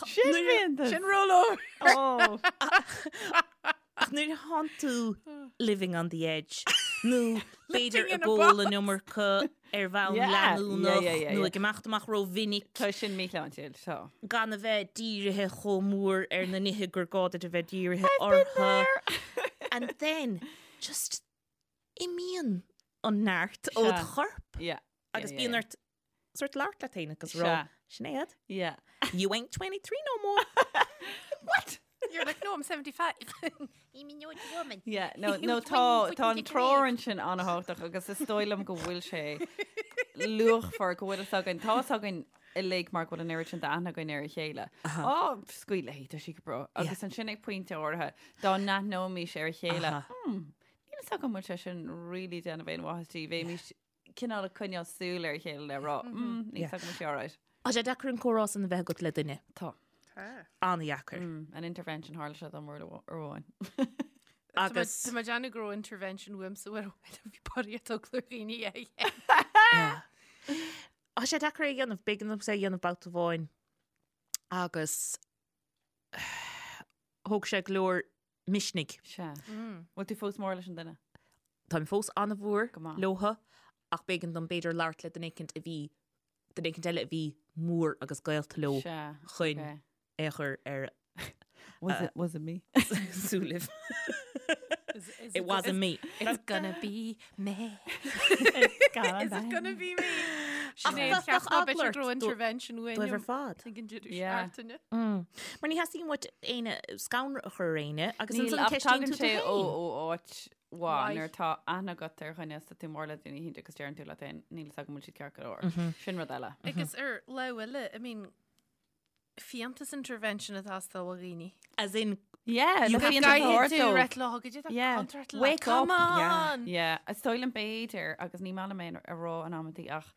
Sin fiántas. Sin rollover. Oh. Ach nuair a thánn tú living on the edge nó b'fhéidir ag ól an iomarca ar bhonn leanúnach nó ag imeacht amach rómhinic. Tá sin míshláintiúil, tá. Gan a bheith dírithe chomh mór ar na nithe gur gá duit a bheith dírithe orthu. And then just imíonn an neart ó do chorp agus bíonn ort sort labhairt leat féin agus rá, Sinéad, Yeah. you ain't 23 no more. What? You're like, no, I'm 75. I'm an old woman. Yeah, no, no, tá, tá an treoir ansin an-tábhachtach agus is dóigh liom go bhfuil sé luachmhar go bhfuil fhios againn, tá fhios againn uilig mar go bhfuil an oiread sin d'aithne againn ar a chéile. Á, scaoil léi, tá sí go breá. Agus ansin ag pointe áirithe, dá n-aithneoimis ar a chéile, hmm, níl fhios agam an bhfuil sé sin really déanamh aon mhaitheas di, bheimis cineál ag coinneáil súil ar a chéile le rá, mm, níl fhios agam an bhfuil sé alright. Tá sé deacair an comhrá san a bheith agat le duine. Tá. An-dheacair. An intervention tharla sé dom uair amháin. Agus. Tá mé ag déanamh go raibh intervention uaimsa uair amháin a bhí barraíocht eagla ar dhaoine é. Tá sé deacair é a dhéanamh, b'éigean domsa é a dhéanamh babhta amháin agus thóg sé go leor misnigh. Sea. Bhfuil tú fós mór leis an duine? Táim fós an-mhór Go maith. leotha ach b'éigean dom b'fhéidir labhairt le duine éicint a bhí, duine éicint eile a bhí mór agus gaolta leo Sea. chun Ok. é a chur ar Was it, was it me? súilibh. It wasn't me. It's gonna be me. Gonna Is it gonna be me? Ach, Sinéad, bheadh cheap ná eagla b'fhéidir ort go raibh intervention uainn dóibh ar fad. Ag an deireadh Yeah. seachtaine. Mar ní theastaíonn uait éinne scanradh a chur ar éinne agus Níl, ansan ach ceistíonn tagann tú tú sé ó féin. ó áit mhaith Mhaith. nuair atá aithne agat ar dhuine is tá tú mór le duine éicint agus deireann tú leat féin, níl fhios agam an bhfuil siad ceart go leor. Sin rud eile. Agus ar lámh eile, I mean, fiántas intervention atá ag teastáil ó dhaoine. As in, Yeah, You le have fiántas a thabhairt Caithfidh tú dóibh. reit lá go dtí Yeah. contract le Wake Come up. Yeah. on! Yeah, is dóigh liom b'fhéidir agus ní maith liom é a rá in amantaí ach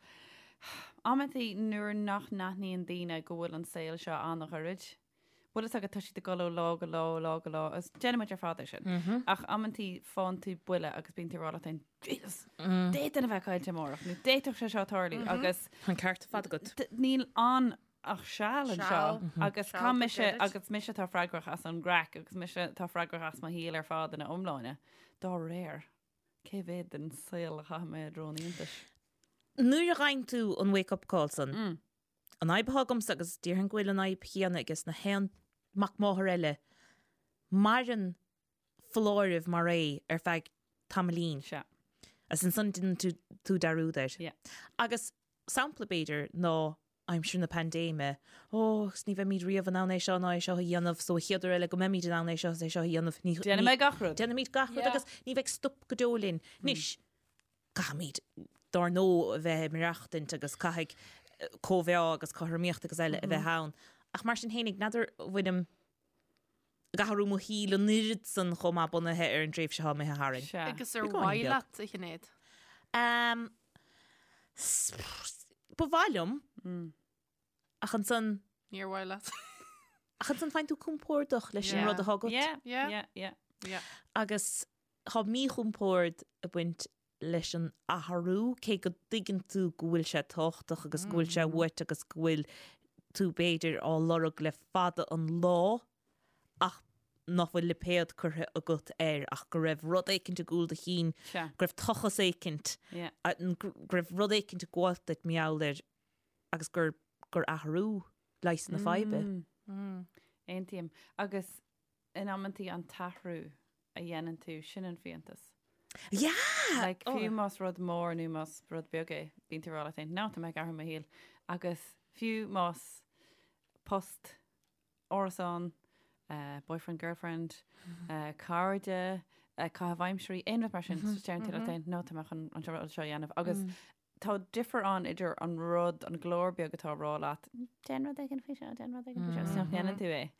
amantaí nuair nach n-aithníonn daoine go bhfuil an saol seo an-ghairid. Bhfuil fhios agat tá siad ag dul ó lá go lá, ó lá go lá, agus déanann muid ar fad é sin. Ach amantaí faigheann tú buille agus bíonn tú ag rá leat féin, Jesus, d'fhéadfainn a bheith caillte amárach, nó d'fhéadfadh sé seo tarlú agus an ceart ar fad agat. d- níl ann ach seal anseo Seal. agus Seal tá go mise gairid. agus mise atá freagrach as an gcraic agus mise atá freagrach as mo shaol ar fad ina iomláine. Dá réir, cé mhéad den saol a chaithfidh mé i dtreo an fhiántais? Nuair a fhaigheann tú an wake up call san, an fhadhb atá agamsa agus déarfainn go bhfuil an fhadhb chéanna aige na haon mac máthar eile, maireann foláireamh mar é ar feadh tamaillín. Sea. Agus ansan déanann tú tú dearúd air. Yeah. Agus sampla b'fhéidir ná aimsir na paindéime, ó, agus ní bheimid riamh in ann é seo ná é seo a dhéanamh, so an chéad uair eile go mbeimid in ann é seo is é seo a dhéanamh, ní, Déanfaidh mé gach rud. Déanfaimid gach rud Yeah. agus ní bheidh stop go deo linn. Anois, caithfimid. dár ndóigh a bheith ag maireachtaint agus caithfidh cóimheá agus cothromaíocht agus eile a bheith ann. Ach mar sin fhéinig, n'fheadar an bhfuilim ag athrú mo shaoil an oiread san chomh maith bunaithe ar an dtréimhse atá imithe tharainn. Sea. Agus ar Beagáinín mhaith beag. leat, a Shinéad? Um, ba mhaith liom, ach ansan, Níor mhaith leat. ach ansan faigheann tú compordach leis an Yeah. rud atá agat. Yeah, Yeah. yeah, yeah. Yeah. Agus tá míchompord ag baint leis an athrú, cé go dtuigeann tú go bhfuil sé tábhachtach agus go bhfuil sé uait agus go bhfuil tú b'fhéidir á lorg le fada an lá ach nach bhfuil lipéad curtha agat air ach go raibh rud éicint i gcúl do chinn, Sea. go raibh tochas éicint, Yeah. go raibh rud éicint ag gabháilt duit mar gheall air agus gur gur athrú leigheas na faidhbe. Aontaím. Agus in amantaí an t-athrú a dhéanann tú, sin an fiántas. Yeah! Like, fiú más rud mór nó más rud beag é, bíonn tú ag rá leat féin, no, tá mé ag athrú mo shaol. Agus fiú más post, árasán, eh, boyfriend, girlfriend, eh, cairde, eh, caitheamh aimsirí, aon rud mar sin, deireann tú leat féin, no, tá mé chun an rud seo a dhéanamh. Agus tá difear ann idir an rud, an glór beag atá ag rá leat, déan rud éigin faoi seo, déan rud éigin faoi seo, agus nach ndéanann tú é.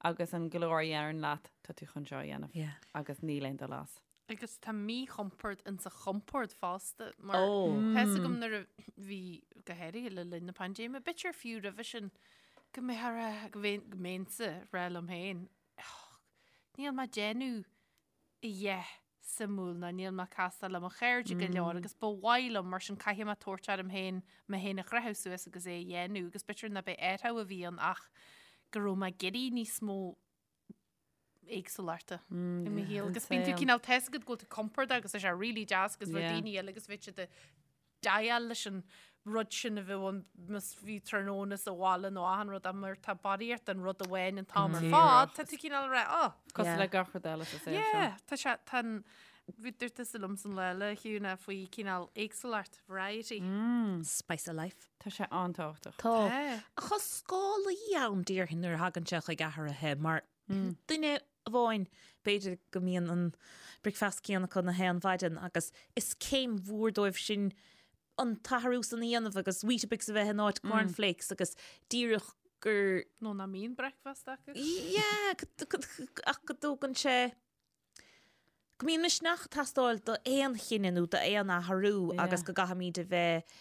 Agus an glór a dheireann leat, tá tú chun seo a dhéanamh. Agus níl aon dul as. Agus tá míchompord insa chompord fosta, mar tá fhios agam nuair a bhí, go háirithe le linn na paindéime, b'fhéidir fiú roimhe sin, go mbeadh a rá, go mbeinnse ag rá liom féin, níl mé ag déanamh a dhath suimiúil ná níl mé ag castáil le mo chairde go leor agus ba mhaith liom mar sin caithfidh mé tabhairt orm féin mé féin a chroitheadh suas agus é a dhéanamh agus b'fhéidir ná b'é athrú a bhí ann ach go raibh mé ag iarraidh níos mó éagsúlachta i mo shaol agus bíonn tú cineál tá fhios agat go bhfuil tú compordach agus tá sé really deas agus bhfuil daoine eile agus bheadh siad ag déileáil leis an rud sin a bheadh ann más bhí tráthnóna sa bhaile nó achan rud ach mar tá barraíocht den rud amháin an t-am ar fad, tá tú cineál ag rá, oh. Cosúil le gach rud eile sa saol seo. Yeah, tá sé, tá an, bhí dúirt tusa liom san lá eile, a Shiún, faoi cineál éagsúlacht, variety. Spice of life. Tá sé an-tábhachtach. Tá. Ach tá scálaí ann déarfainn nuair a thagann sé chuig athruithe mar duine amháin, b'fhéidir go mbíonn an bricfeasta céanna acu na haon mhaidin agus is céim mhór dóibh sin an t-athrú san a dhéanamh agus Weetabix a bheith in áit cornflakes agus díreach gur. Nó nach mbíonn bricfeasta acu. Yeah, ach go dtógann sé, go mbíonn misneach ag teastáil d'aon chinneadh nó d'aon athrú agus go gcaithfimid a bheith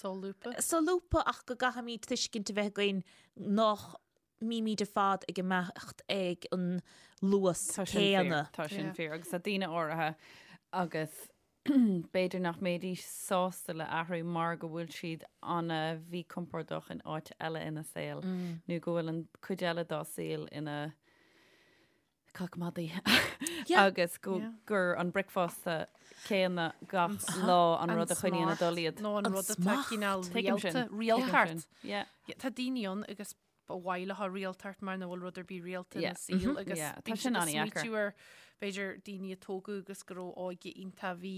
Solúbtha. Solúbtha ach go gcaithfimid tuiscint a bheith againn nach mbímid ar fad ag imeacht ag an luas Tá sin fíor, céanna. tá sin fíor agus tá daoine áirithe agus b'fhéidir nach mbeidís sásta le athrú mar go bhfuil siad ana-mhíchompordach in áit eile ina saol nó go bhfuil an cuid eile dá saol ina cac madaidh agus go gur an bricfeasta céanna gach lá an rud a choinníonn ag dul iad. Nó an rud atá cineál rialta, rialtacht. Tá daoine ann agus ba mhaith leo rialtacht mar nach bhfuil rud ar bith rialta ina saol agus Tá sin an-dheacair. ar b'fhéidir daoine a tógadh agus go raibh óige iontach bhí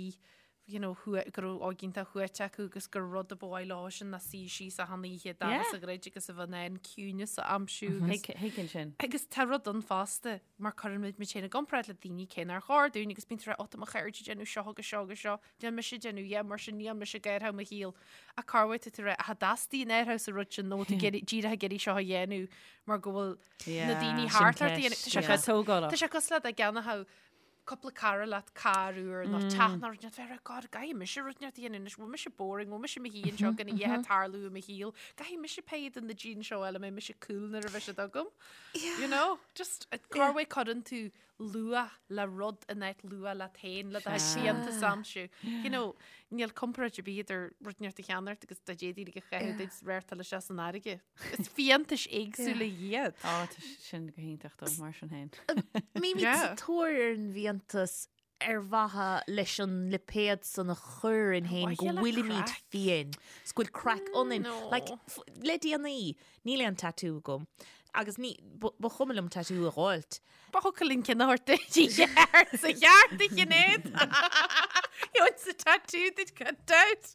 you know, go raibh óige iontach shuaite acu agus gur rud a ba mhaith leo sin ná suí síos achan oíche dorcha sa ghrid agus a bheith in ann ciúineas a aimsiú agus Thuigfinn sin. Agus tá rud ann fosta mar cuireann muid muid féin i gcomparáid le daoine cé nár chóir dúinn agus bíonn tú ag rá, ó tá mo chairde ag déanamh seo agus seo agus seo, níl mise ag déanamh yeah mar sin níl mise ag athrú mo shaol. Ach cá bhfuil tú ag rá, ach an dteastaíonn athrú sa rud sin nó tú díreach ag iarraidh seo a dhéanamh mar go bhfuil na daoine thart ort a dhéanamh. Tá sé tógálach. Tá sé cosúil le dá gceannódh cúpla cara leat carr úr nó teach nó rud inteacht bheith God caithfidh mise rud inteacht a dhéanamh anois bhfuil mise boring bhfuil mise i mo shuí anseo gan a dhath ag tarlú i mo shaol caithfidh mise pay do na jeans seo eile mbeidh mise cool nuair a bheidh siad agam you know just cá bhfuil cuireann tú luach le rud in áit luach leat féin le do fhiántas a aimsiú you know níl comparáid ar bith idir rud inteacht a cheannacht agus dá d'fhéadfaí a chaitheamh duit réirteáil isteach san fharraige Is fiántais éagsúla iad. Á, tá sin go hiontach dó, mar sin féin. Bímid sa tóir ar an bhfiántas ar mhaithe leis an lipéad san a chur orainn féin go bhfuilimid fiáin, 's go bhfuil craic ionainn. Like, le déanaí, níl aon tattoo agam agus ní, ba chuma liom tattoo a dh'fháilt. Ba thiocfadh linn ceann a thabhairt duit i gceart sa cheart a Shinéad. Gheobhainn sa tattoo duit gan dabht.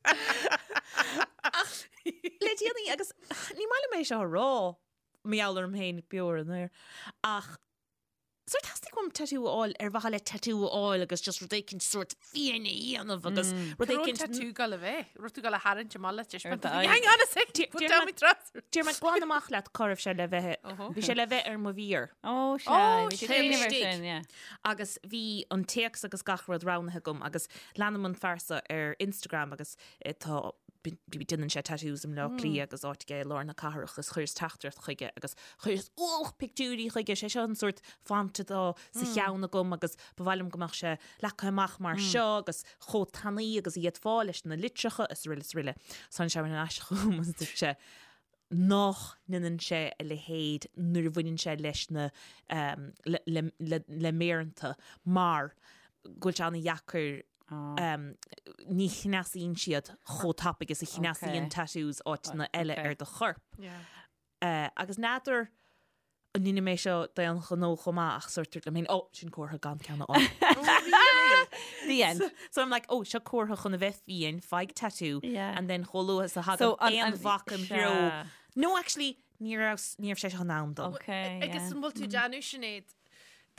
Ach le déanaí agus ní maith liom é seo a rá, mar gheall orm féin beo ar an aer, ach Sórt theastaigh uaim tattoo a fháil ar mhaithe le tattoo a fháil agus just rud éicint sórt fiáin a dhéanamh agus rud Cá raibh an éicint tattoo ag dul a bheith? Raibh tú ag dul a tharraingt amach le Ar d'aghaidh. Hang on a sec, put down my trousers. Déarfaidh mé glan amach leat cá raibh sé le bheith. Bhí sé le bheith ar mo mhéar. Ó, sea, Ó, bhí sin cuimhneamh air istigh. sin, yeah. Agus bhí an téacs agus gach rud roghnaithe agam agus leanaim an fear seo ar Instagram agus tá déanann sé tattoos i mBleá Cliath agus áit aige i lár na cathrach agus chuireas teachtaireacht chuige agus chuireas ualach pictiúirí chuige, sé seo an sórt font atá sa cheann agam agus ba mhaith liom go mbeadh sé leagtha amach mar seo agus chomh tanaí agus a d'fhéadfá leis na litreacha is araile is araile. So tháinig sé ar ais chugam agus dúirt sé nach ndéanann sé a leithéid nuair a bhaineann sé leis na le méireanta mar go bhfuil sé an-dheacair ní chneasaíonn siad chomh tapaidh is a chneasaíonn tattoos áiteanna eile ar do chorp. Agus n'fheadar an ndéanfaidh mé seo d'aon ghnó chomh maith ach sórt dúirt liom féin, oh, sin comhartha gan ceann a fháil. The end. So I'm like, oh, seo comhartha chun a bheith fiáin, faigh tattoo, Yeah. and then chomh luath is a thagann So, an- aon an- bhac im sea. threo. No, actually, ní raibh ní raibh sé seo in am dom. Okay, Agus yeah. an bhfuil tú ag déanamh Sinéad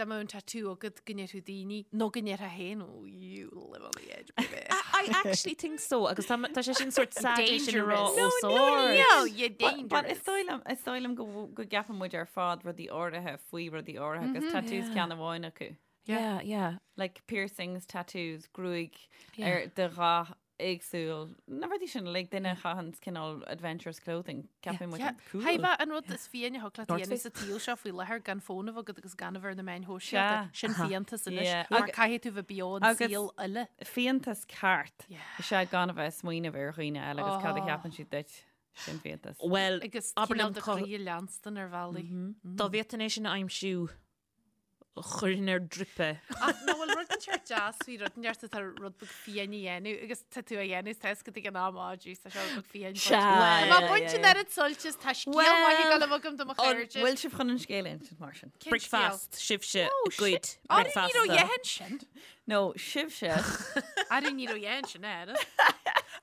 dá mbeadh an tattoo agat go ndéarfadh daoine nó go ndéarfá féin oh you live on the edge baby. I actually think so agus tá tá sé sin sort sad é sin a rá Dangerous. os No, no, ard. no, you're But is dangerous. dóigh liom is dóigh liom go bhfu- go gceapann muid ar fad rudaí áirithe faoi rudaí áirithe agus tattoos ceann amháin acu. Yeah, yeah. Like piercings, tattoos, gruaig ar de dhath éagsúil. Na rudaí sin uilig duine a chaitheann cineál adventurous clothing. Ceapann muid cool. Haimh an rud is fiáine a thig leat a North dhéanamh Face. sa tsaol seo faoi láthair gan fón a bheith agat agus gan a bheith ar na meáin shóisialta. Sea. Sin fiántas anois. Yeah. Mar Ag- caithfidh tú bheith beo an agus- saol uile. Fiántas ceart. Yeah. Is ea gan a bheith ag smaoineamh ar dhaoine eile agus cad a Oh. cheapann siad duit. Sin fiántas. Well, Agus abair cineál liom do cá- chroí a leanstan ar bhealaí. dá bhféadfainn é sin a aimsiú chuirfinn ar drip é. Ach nó bhfuil rud inteacht deas faoi rud inteacht atá rud beag fiáin a dhéanamh agus tá tú a dhéanamh tá fhios agat ag an am á jeez tá seo rud beag fiáin Sea, Tá yeah, baint yeah, an oiread suilt is tá scéal maith ag dul agam do mo chairde. Bhfuil sibh chun an scéal a insint mar sin? Cén scéal? Bricfeast, sibhse, goid, Arú ní raibh bricfeasta. dhéan sin. No, sibhse. Arú ní raibh dhéan sin air.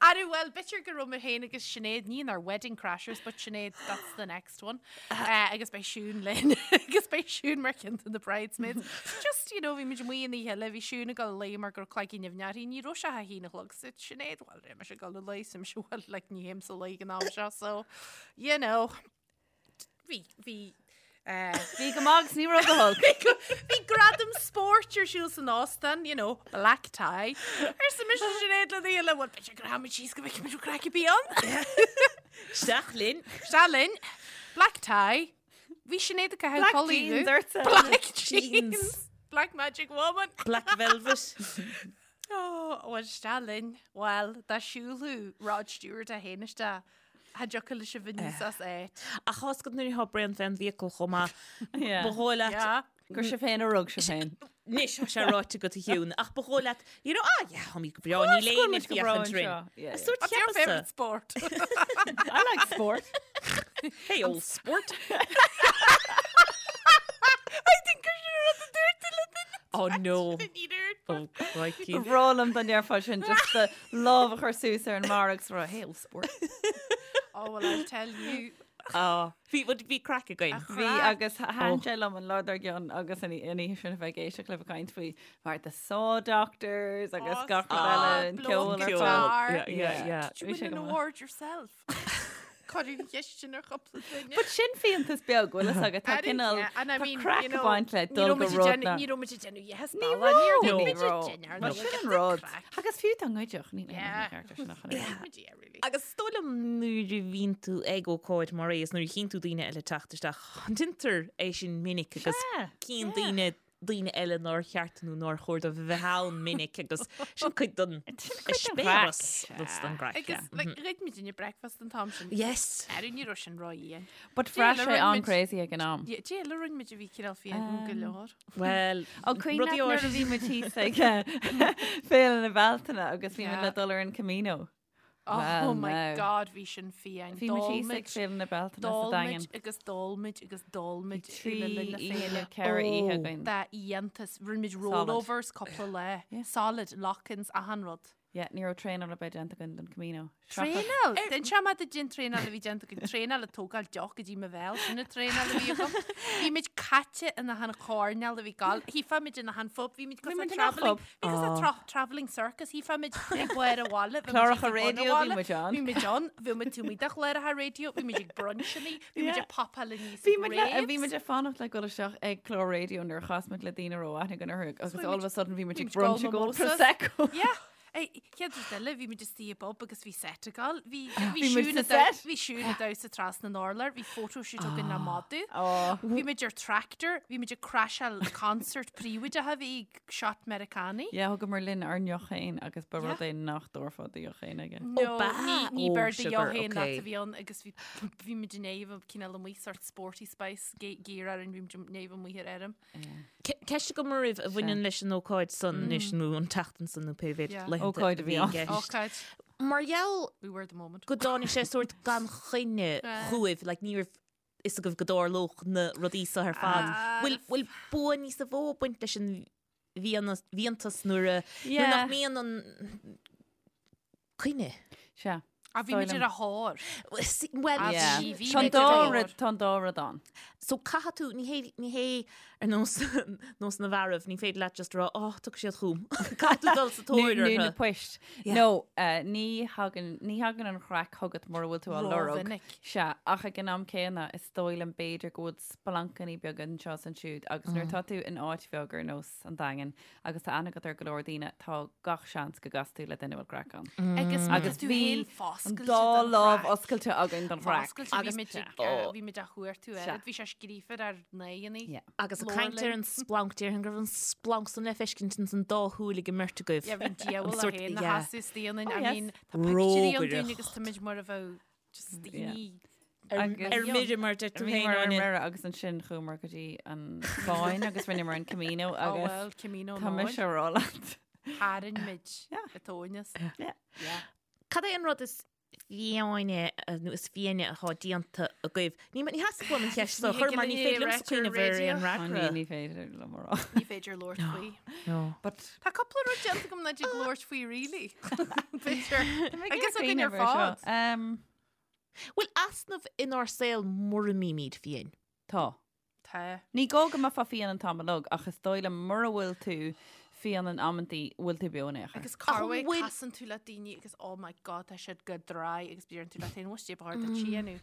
Arú well b'fhéidir go raibh mé féin agus Sinéad ní inár wedding crashers but Sinéad that's the next one. Uh, agus beidh Siún linn agus beidh Siún mar cheann de na bridesmaids. Just you know bhí muid amuigh an oíche eile bhí Siún ag dul a luí mar go raibh cloigeann nimhneach uirthi ní raibh sé a haon a chlog so Sinéad well beidh mise ag dul a luí so mise well like ní théim a luí ag an am seo so you know bhí bhí uh, Bhí go maith agus ní raibh go holc. Bhí gradam spóirt ar siúl san óstán, you know, black tie. Arsa mise Sinéad le daoine, well, b'fhéidir go rachaimid síos go bhfeicfimid an craic a bhí ann. Isteach linn. Isteach linn. Black tie. Bhí Sinéad ag caitheamh Black culaith jeans dhubh. ortsa. Black jeans. Black magic woman. Black velvet. Oh, well, isteach linn. Well, dá siúlfadh Rod Stewart é féin isteach, cha dtiocfadh leis a bheith níos as áit. Ach tá a fhios agat nuair atá braon fén bhfiacail chomh maith. Yeah. Ba dhóigh leat Yeah. Gur sibh féin a rug sibh féin. Anois tá sé ráite agat a Shiún, ach ba dhóigh leat, you know, ah, yeah, táimid go breá, níl Course aon go féachaint breá orainn. anseo. Yeah, yeah. Sórt What's your cheapasa. favourite sport? I like sport. Hey, old sport. I think gur sin rud a dúirt tú le duine. Oh no. Ní dúirt. Oh, crikey. Ba bhreá liom dá ndéarfá sin just do lámh a chur suas ar an mbarra agus rá, hey, old sport. Oh, well, I'll tell you. Oh, bhí bhí craic againn. Bhí agus thaitin sé liom an lá dár gcionn agus an oíche sin a bheith ag éisteacht libh ag caint faoi mar the Saw Doctors agus Oh, gach rud stop, eile, an blow ceol ar guitar. fad. Yeah, yeah, yeah. Did you Bhí win sé an go maith. award yourself? Cuireadh an cheist sin ar chúpla duine. But sin fiántas beag bhfuil fhios agat tá I didn't- cineál yeah, and I tá mean, craic you know, ag baint le ní dul raibh go muid ag rud déanamh- na. Ní raibh muid ag déanamh yes, Ní Bala, ní raibh. raibh Ní muid ag raibh. déanamh, Mar ní sin raibh an rud. craic. Agus fiú dá ngoidfeadh, ní Yeah. ceart sin a chun ar. Muid, yeah, really. Agus is dóigh liom nuair a bhíonn tú ag ócáid mar é is nuair a chíonn tú daoine eile teacht isteach, déantar é sin minic agus Sea, cíonn daoine daoine eile nár cheart nó nár chóir dóibh a bheith ann minic agus sin cuid den eispéireas den gcraic. Agus like, ghoid muid inne breakfast an t-am sin. Yes. Arú ní raibh sin ró-dhian. But bhraith Déala sé rinne muid- an-crazy ag an am. Yeah, Déala rinne muid a bhí cineál fiáin go leor. Well, Ó cuimhin leat rudaí nuair a áirithe- bhí muid thíos ag Féile na Bealtaine agus bhí muid Yeah. le dul ar an Camino. Oh, Well, my now. God, bhí sin fiáin. Bhí muid thíos ag Féile na Bealtaine sa D'ól Daingean. muid agus d'ól muid agus d'ól muid Trí le linn na oíche, féile. ceithre oíche Oh. againn. Dá iontas, rinne muid Solid. rollovers cúpla lá. Yeah. Solid, lock-ins, achan rud. Yeah, ní raibh traenáil ar bith déanta againn don Camino. Traenáil? D'inseodh mé duit an traenáil a bhí déanta againn. Traenáil ag tógáil deoch go dtí mo bhéal, sin an traenáil a bhí agam. Bhí muid caite in achan choirnéal a bhí gal. Shílfeá muid in achan phub, bhí muid cosúil muid in achan travelling, phub. bhí cosúil tra travelling circus, shílfeá muid ag barr an bhaile, bhí muid Cláracha ag bun an raidió, bhí bhaile, muid ann. Bhí muid ann, bhí muid taobh amuigh de chláracha raidió, bhí muid ag brunchannaí, bhí muid ag popáil aníos Bhí ag muid le, bhí raves. muid ag fanacht le dul isteach ag clár raidió nuair a chas muid le daoine a raibh aithne againn orthu agus Bhí all muid- of a sudden bhí muid bhí ag muid ag ól brunch ag ól mimosas. Prosecco. Yeah. Ei, Chéad rud eile, bhí muid istigh i bpub agus bhí set ag gabháil. Bhí bhí Bhí muid Siún sa ag damh- set. bhí Siún ag damhsa trasna an urláir, bhí photoshoot againn le madadh. Oh. Bhí muid ar tractor, bhí muid ag crasháil concert príobháideach a bhí ag shot Meiriceánaigh. Yeah, thugamar linn ár ndeoch féin agus ba Yeah. rud é nach dtabharfá do dheoch féin aige. No, ba- ní ní oh, beir do sugar, dheoch féin leat okay. a bhí ann agus bhí bhí muid in éamh cineál amuigh sort sporty spice gear orainn bhí muid in éamh amuigh ar fheirm. Ceist agam oraibh a bhaineann leis an ócáid san anois nó an tseachtain san nó pé mhéad Yeah. laethanta Ócáid a bhí i ann. gceist. Ócáid. Mar gheall We were the moment. go dtáinig sé sórt gan choinne Ah. chugaibh, like, ní raibh fhios agaibh go dtarlódh na rudaí seo ar fad. Ah. Bhfuil bhfuil bua níos mó ag baint leis an bhfiannas- bhfiántas nuair a nuair Yeah. nach mbíonn an coinne? Sea. A bhí muid ar a thóir. Well, Ah, Yeah. bhí- bhí Tá an muid ar dá a thóir. rud, tá an dá rud ann. So caithfidh tú, ní hé, ní hé ar nós, nós na bhfearaibh, ní féidir leat just rá, oh, tiocfaidh siad chugam. Caithfidh tú dul sa tóir Nó na orthu. poist. Yeah. No, eh, ní thagann, ní thagann an chraic chugat mura bhfuil tú á lorg. Rómhinic. Sea, ach ag an am céanna, is dóigh liom b'fhéidir go bhfuil splancannaí beaga anseo is ansiúd agus nuair atá tú in áit bheag ar nós an Daingin agus tá aithne agat ar go leor daoine, tá gach seans go gcasfaidh tú le duine a bhfuil craic ann. Agus Agus tú bhí féin an foscailte dá don lámh chraic. oscailte againn don chraic. Foscailte, bhí Agus- muid ag- Ó. bhí muid á chuartú Sea. air. Bhí sé scríofa ar n-aghaidheanna. Yeah. Agus ag Leor caint ar linn. an splanc, déarfainn go raibh an splanc san le feiscint ins an dá shúil ag an mbeirt agaibh. Yeah, bhí an diabhal An é sórt- féin na yeah. sheasamh istigh ionainn. Oh, I yes. mean, tá pictiúirí ann dúinn Rógaireacht. agus tá muid mar a bheadh just daoine Agus- Ar mire mar deir tú Bhí féin, mar ar Áine. mire agus ansin chuamar go dtí an Spáinn agus rinneamar an Camino Oh agus well, Camino tá mise Nóin. á rá leat. Tharraing muid Yeah. a tóineas. Yeah. Yeah. Cad é an rud is fiáine nó is fiáine atá déanta agaibh? Ní ní theastaigh uaim an cheist seo a Ní chur thig mar ní linn féidir é liomsa a cuimhneamh ar radio. aon Ó, ní fhreagra. ní féidir liom a rá. Ní féidir labhairt faoi. No. But Tá cúpla rud déanta agam nach dtig labhairt faoi really. B'fhéidir. Agus againn ar cuimhneamh ar seo. fad. Um, Bhfuil easnamh inár saol mura mbímid fiáin? Tá. Tá. Ní gá go mbeifeá fiáin an t-am uilig, ach is dóigh liom mura bhfuil tú fiáin in amantaí, bhfuil tú beo in aon chor. Agus corruair bhfuil- casann tú le daoine agus oh my god tá siad go dry agus deireann tú leat féin bhfuil sé bhar duit sí nó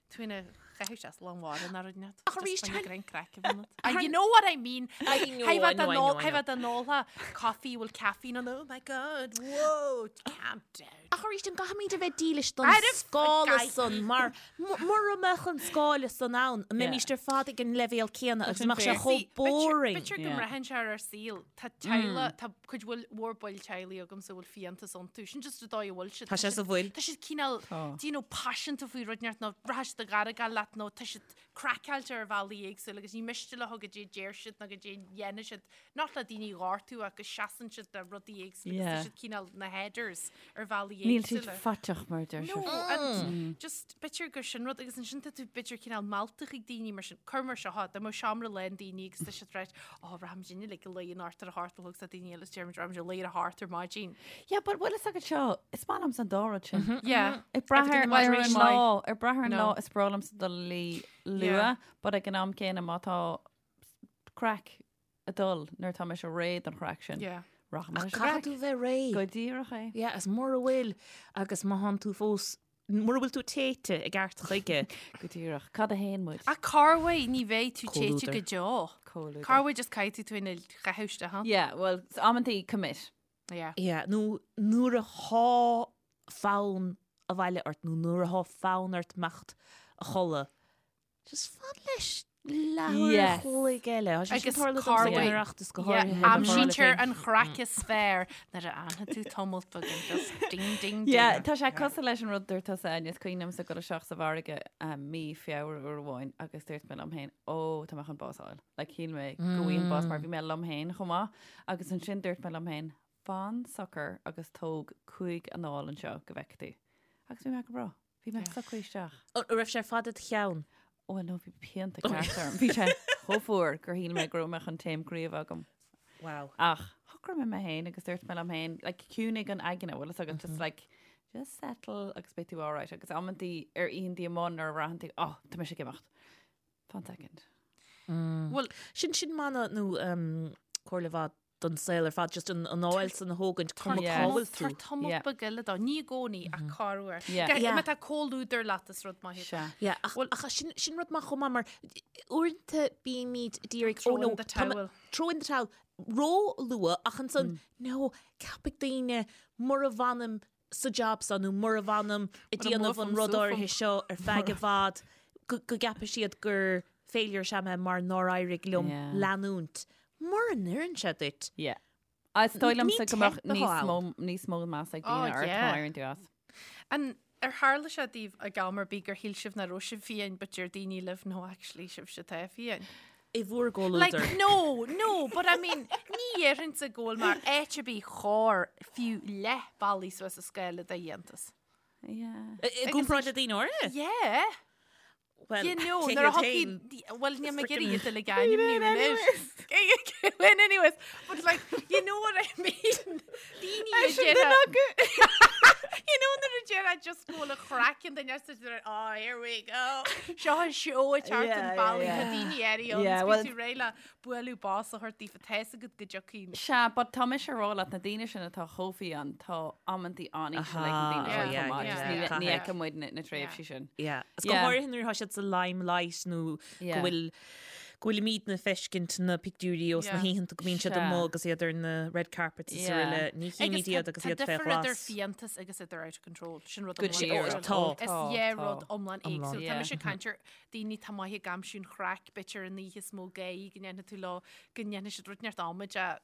tú ina chaitheamh sé lán mhara ná rud net. Ach arís, Just tá- grein craic a bheith ionat. You know what I mean? I know, I know, I know, I Hei know. bheith an óltha coffee bhfuil caffeine on oh my god whoa calm down. Ach arís an gcaithfimid a bheith dílis don Arbh scála gcaithfidh. san mar mura mbeadh an scála san ann, an mbeimíst ar fad ag an leibhéal céanna agus sin mbeadh sé fair. chomh See, boring. B'fhéidir go Yeah. mbraitheann sé ar ár saol. Tá teaghlach, tá cuid bhfuil mhór baill teaghlaigh agamsa a bhfuil fiántas iontu. Sin just an dóigh a bhfuil siad. Tá sé sa bhfuil. Tá siad cineál, Tá. do you know, paiseanta faoi rud inteacht nó rachaidh siad ag argáil leat nó tá siad craiceáilte ar bhealaí éagsúla agus ní miste leo goidé a deir siad nó goidé a dhéanann siad. Not le daoine a ghortú ach go seasann siad le rudaí éagsúla agus tá Yeah. siad cineál na headers ar bhealaí Níl siad éagsúla. faiteach mar deir No, siad. and just b'fhéidir gur sin rud agus ansin tá tú b'fhéidir cineál meallta chuig daoine mar sin, cuir mar seo, dá mbeadh seomra lán daoine agus tá siad right, oh, rachaimid inniu like a luí anocht ar a hocht a chlog tá daoine eile is deirimid rachaimid a luí ar a hocht ar maidin. Yeah, but bhfuil fhios agat seo, is maith liomsa an dá rud sin. Yeah. Ag brath ar Everything in ar an moderation. lá, ag brath ar an No. lá is breá liomsa dul a luí Yeah. luath, but ag an am céanna má tá craic ag dul nuair atá mise réidh don chraic sin. Yeah. Rachaidh mé leis an Caithfidh gcraic. tú bheith réidh. Go díreach é. Yeah, is mura bhfuil agus má thánn tú fós, mura bhfuil tú téite i gceart chuige. Go díreach. Cad a théann muid? Ach corruair ní bheidh tú téite Comhluadar. go deo. Comhluadar. Corruair just caithfidh tú tú ina chaitheamh isteach ann. Yeah, well, amantaí commit. Yeah. Yeah, nó nuair athá fonn abhaile ort nó nuair athá fonn ort imeacht a chodladh, just fan leis leathuair Yes. a chloig eile. Tá sé sin Agus tarlú domsa ag an corruair. Oireachtas go Yeah, háirithe le mo aimsítear bharúil an chraic is fearr nuair a fhanfaidh tú tamalt beag and just ding ding ding. Yeah, tá sé cosúil leis an rud dúirt tusa Áine, is cuimhin liomsa dul isteach sa bhfarraige um, mí Feabhra uair amháin agus dúirt mé liom féin, ó, tá mé chun bás a fháil. Like, shíl mé go bhfaighinn bás mar bhí mé liom féin chomh maith. Agus ansin dúirt mé liom féin, fan socair agus tóg 5 anáil anseo go bhfeicfidh tú. Agus bhí mé go breá. Bhí mé socraithe isteach. An raibh sé fad id cheann? Ó, no, bhí pianta ceart orm. Bhí sé chomh fuar gur shíl mé go raibh mé chun taom croí a bheith agam. Wow. Ach, shocraigh mé mé féin agus dúirt mé liom féin, like, ciúnaigh an aigne, bhfuil fhios agat, just like, just settle agus beidh tú alright. Agus amantaí ar oícheantaí amuigh nuair a bhraitheann tú, oh, tá mise ag imeacht. Fan second. Bhuel, Sin sin mana nó um, comhairle mhaith don saol ar fad, just an anáil san a thógaint cuma cá bhfuil tú. Tabhair tamall Yeah. beag eile dó, ní i gcónaí ach corruair. Yeah. Go- Yeah. Má tá comhluadar leat is rud maith. Sea. Yeah, ach, ach sin, sin rud maith chomh maith mar uaireanta bímid ag iarraidh Throw oh no, in the tá mé- towel. throw in the towel ró-luath ach ansan no, ceapfaidh daoine mura bhfanaim sa job seo nó mura bhfanaim ag Mura déanamh an mbuafaim rud suafaim. áirithe seo ar feadh i bhfad go, go gceapfaidh siad gur failure is ea mé mar nár éirigh liom Yeah. leanúint. Mura n-oireann sé duit. Yeah. Is dóigh liomsa Ní go mbeadh teip atá níos ann. mó níos mó meas ag Oh, daoine ort má yeah. éiríonn tú as. An ar tharla sé daoibh ag am ar bith gur shíl sibh nach raibh sibh fiáin but deir daoine libh no actually sibhse atá fiáin. I bhur Like, gcomhluadar. no, no, but I mean, ní dhéarfainnse go bhfuil mé áit ar bith chor fiú leath bealaigh suas an scála de fhiántas. Yeah. I i gcomparáid le daoine áirithe? Yeah. Well, You know, cé nuair a hiad féin? thiocfaidh, well, níl mé ag iarraidh iad uilig a ainmniú anois. Well, anyways, but like, you know what I mean? Daoine a deir, you know nuair a deir just go bhfuil an chraic an duine sa deir, oh, here we go. Seo an seó ag teacht Yeah, an yeah, bealaigh, yeah. tá daoine airí ann, Yeah, is well- bíonn tú réidh le bualadh bos a thabhairt daofa, tá fhios agat go dtiocfaidh. Sea, but tá mise ag rá leat na daoine sin atá chomh fiáin, tá amantaí an-íseal ag na daoine Aha, sin yeah, chomh maith. yeah, Just ní yeah. ní fheiceann muid na na tréimhsí sin. Yeah. Is go Yeah. háirithe nuair atá siad sa limelight nó go Yeah. bhfuil go bhfuilimidne ag feiscint na pictiúirí ós na Yeah. hoícheanta go mbíonn siad Sea. amuigh agus iad ar na red carpets is Yeah. araile. Ní chímid iad agus tá iad fé difear idir ghlas. fiántas agus idir out of control. Sin rud Go iomlán díreach. éagsúil. Tá. Is Tá, dhá tá. rud iomlán éagsúil. Tá Yeah. mise ag caint ar daoine atá maith ag aimsiú an chraic, b'fhéidir an oíche is mó gáire go ndéanfaidh tú leo, go ndéanfaidh siad rud neart amaide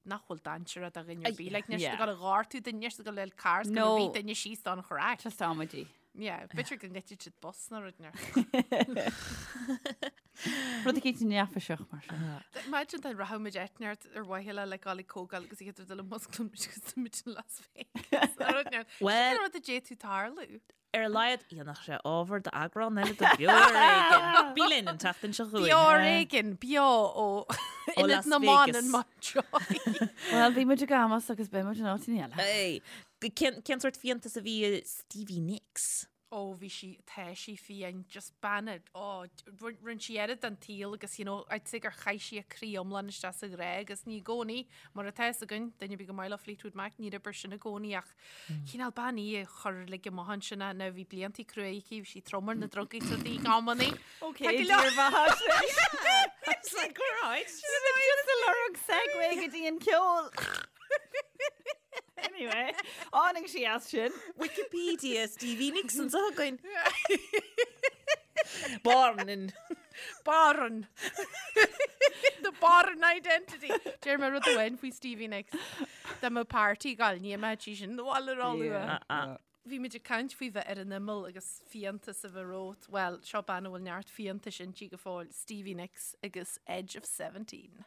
nach bhfuil dainséarach do dhuine ar bith. Like, níl siad Yeah. ag dul a ghortú duine, níl siad ag dul le carr, is go No. rith duine síos don chraic. Just amaidí. Yeah, b'fhéidir go ngoidfidh siad bus nó rud neart. Rud eicínt neafaiseach mar sin. Imagine dá rachadh muid áit neart ar mhaithe le le dul ag comhdháil agus iad ag dul i musclú muid agus muid in Las Vegas. Nó rud neart. Well- Sin rud a d'fhéadfadh tarlú. Ar a laghad, dhéanfadh sé ábhar d'eagrán eile de Beo ar Éigean. Bí linn an tseachtain seo chugainn. Beo ar Éigean, beo ó Ionad Las na mBan Vegas. in Mountjoy. Well, bhí muid ag Amos agus beidh muid in áit eile. Hey, cén cén sórt fiántas a bhí i Stevie Nicks? Ó, bhí sí, tá sí fiáin, just bean a, ó, rinne sí oiread den tsaol agus, you know, I'd say gur chaith sí a croí iomlán isteach sa ghrá agus ní i gcónaí, mar atá fhios againn, duine ar bith gur maith leo Fleetwood Mac, níor oibir sin i gcónaí ach cineál bean í a chuir uilig amach ansin é, now bhí bliantaí crua aici, bhí sí trom ar na drugaí is rudaí ag amannaí. Ok, Tá go leor- It's like, all right. Just a lorg segue go dtí an ceol. Anyway, tháinig sí as sin. Wikipedia Stevie Nicks anseo againn. Born in Born. The Born identity. Deir mé rud amháin faoi Stevie Nicks. Dá mbeadh party ag gabháil, ní mbeadh sí sin abhaile róluath. Bhí muid ag caint faoi bheith ar an imeall agus fiántas a bheith romhat. Bhuel, seo bean a bhfuil neart fiántais inti go fóill, Stevie Nicks agus Edge of 17.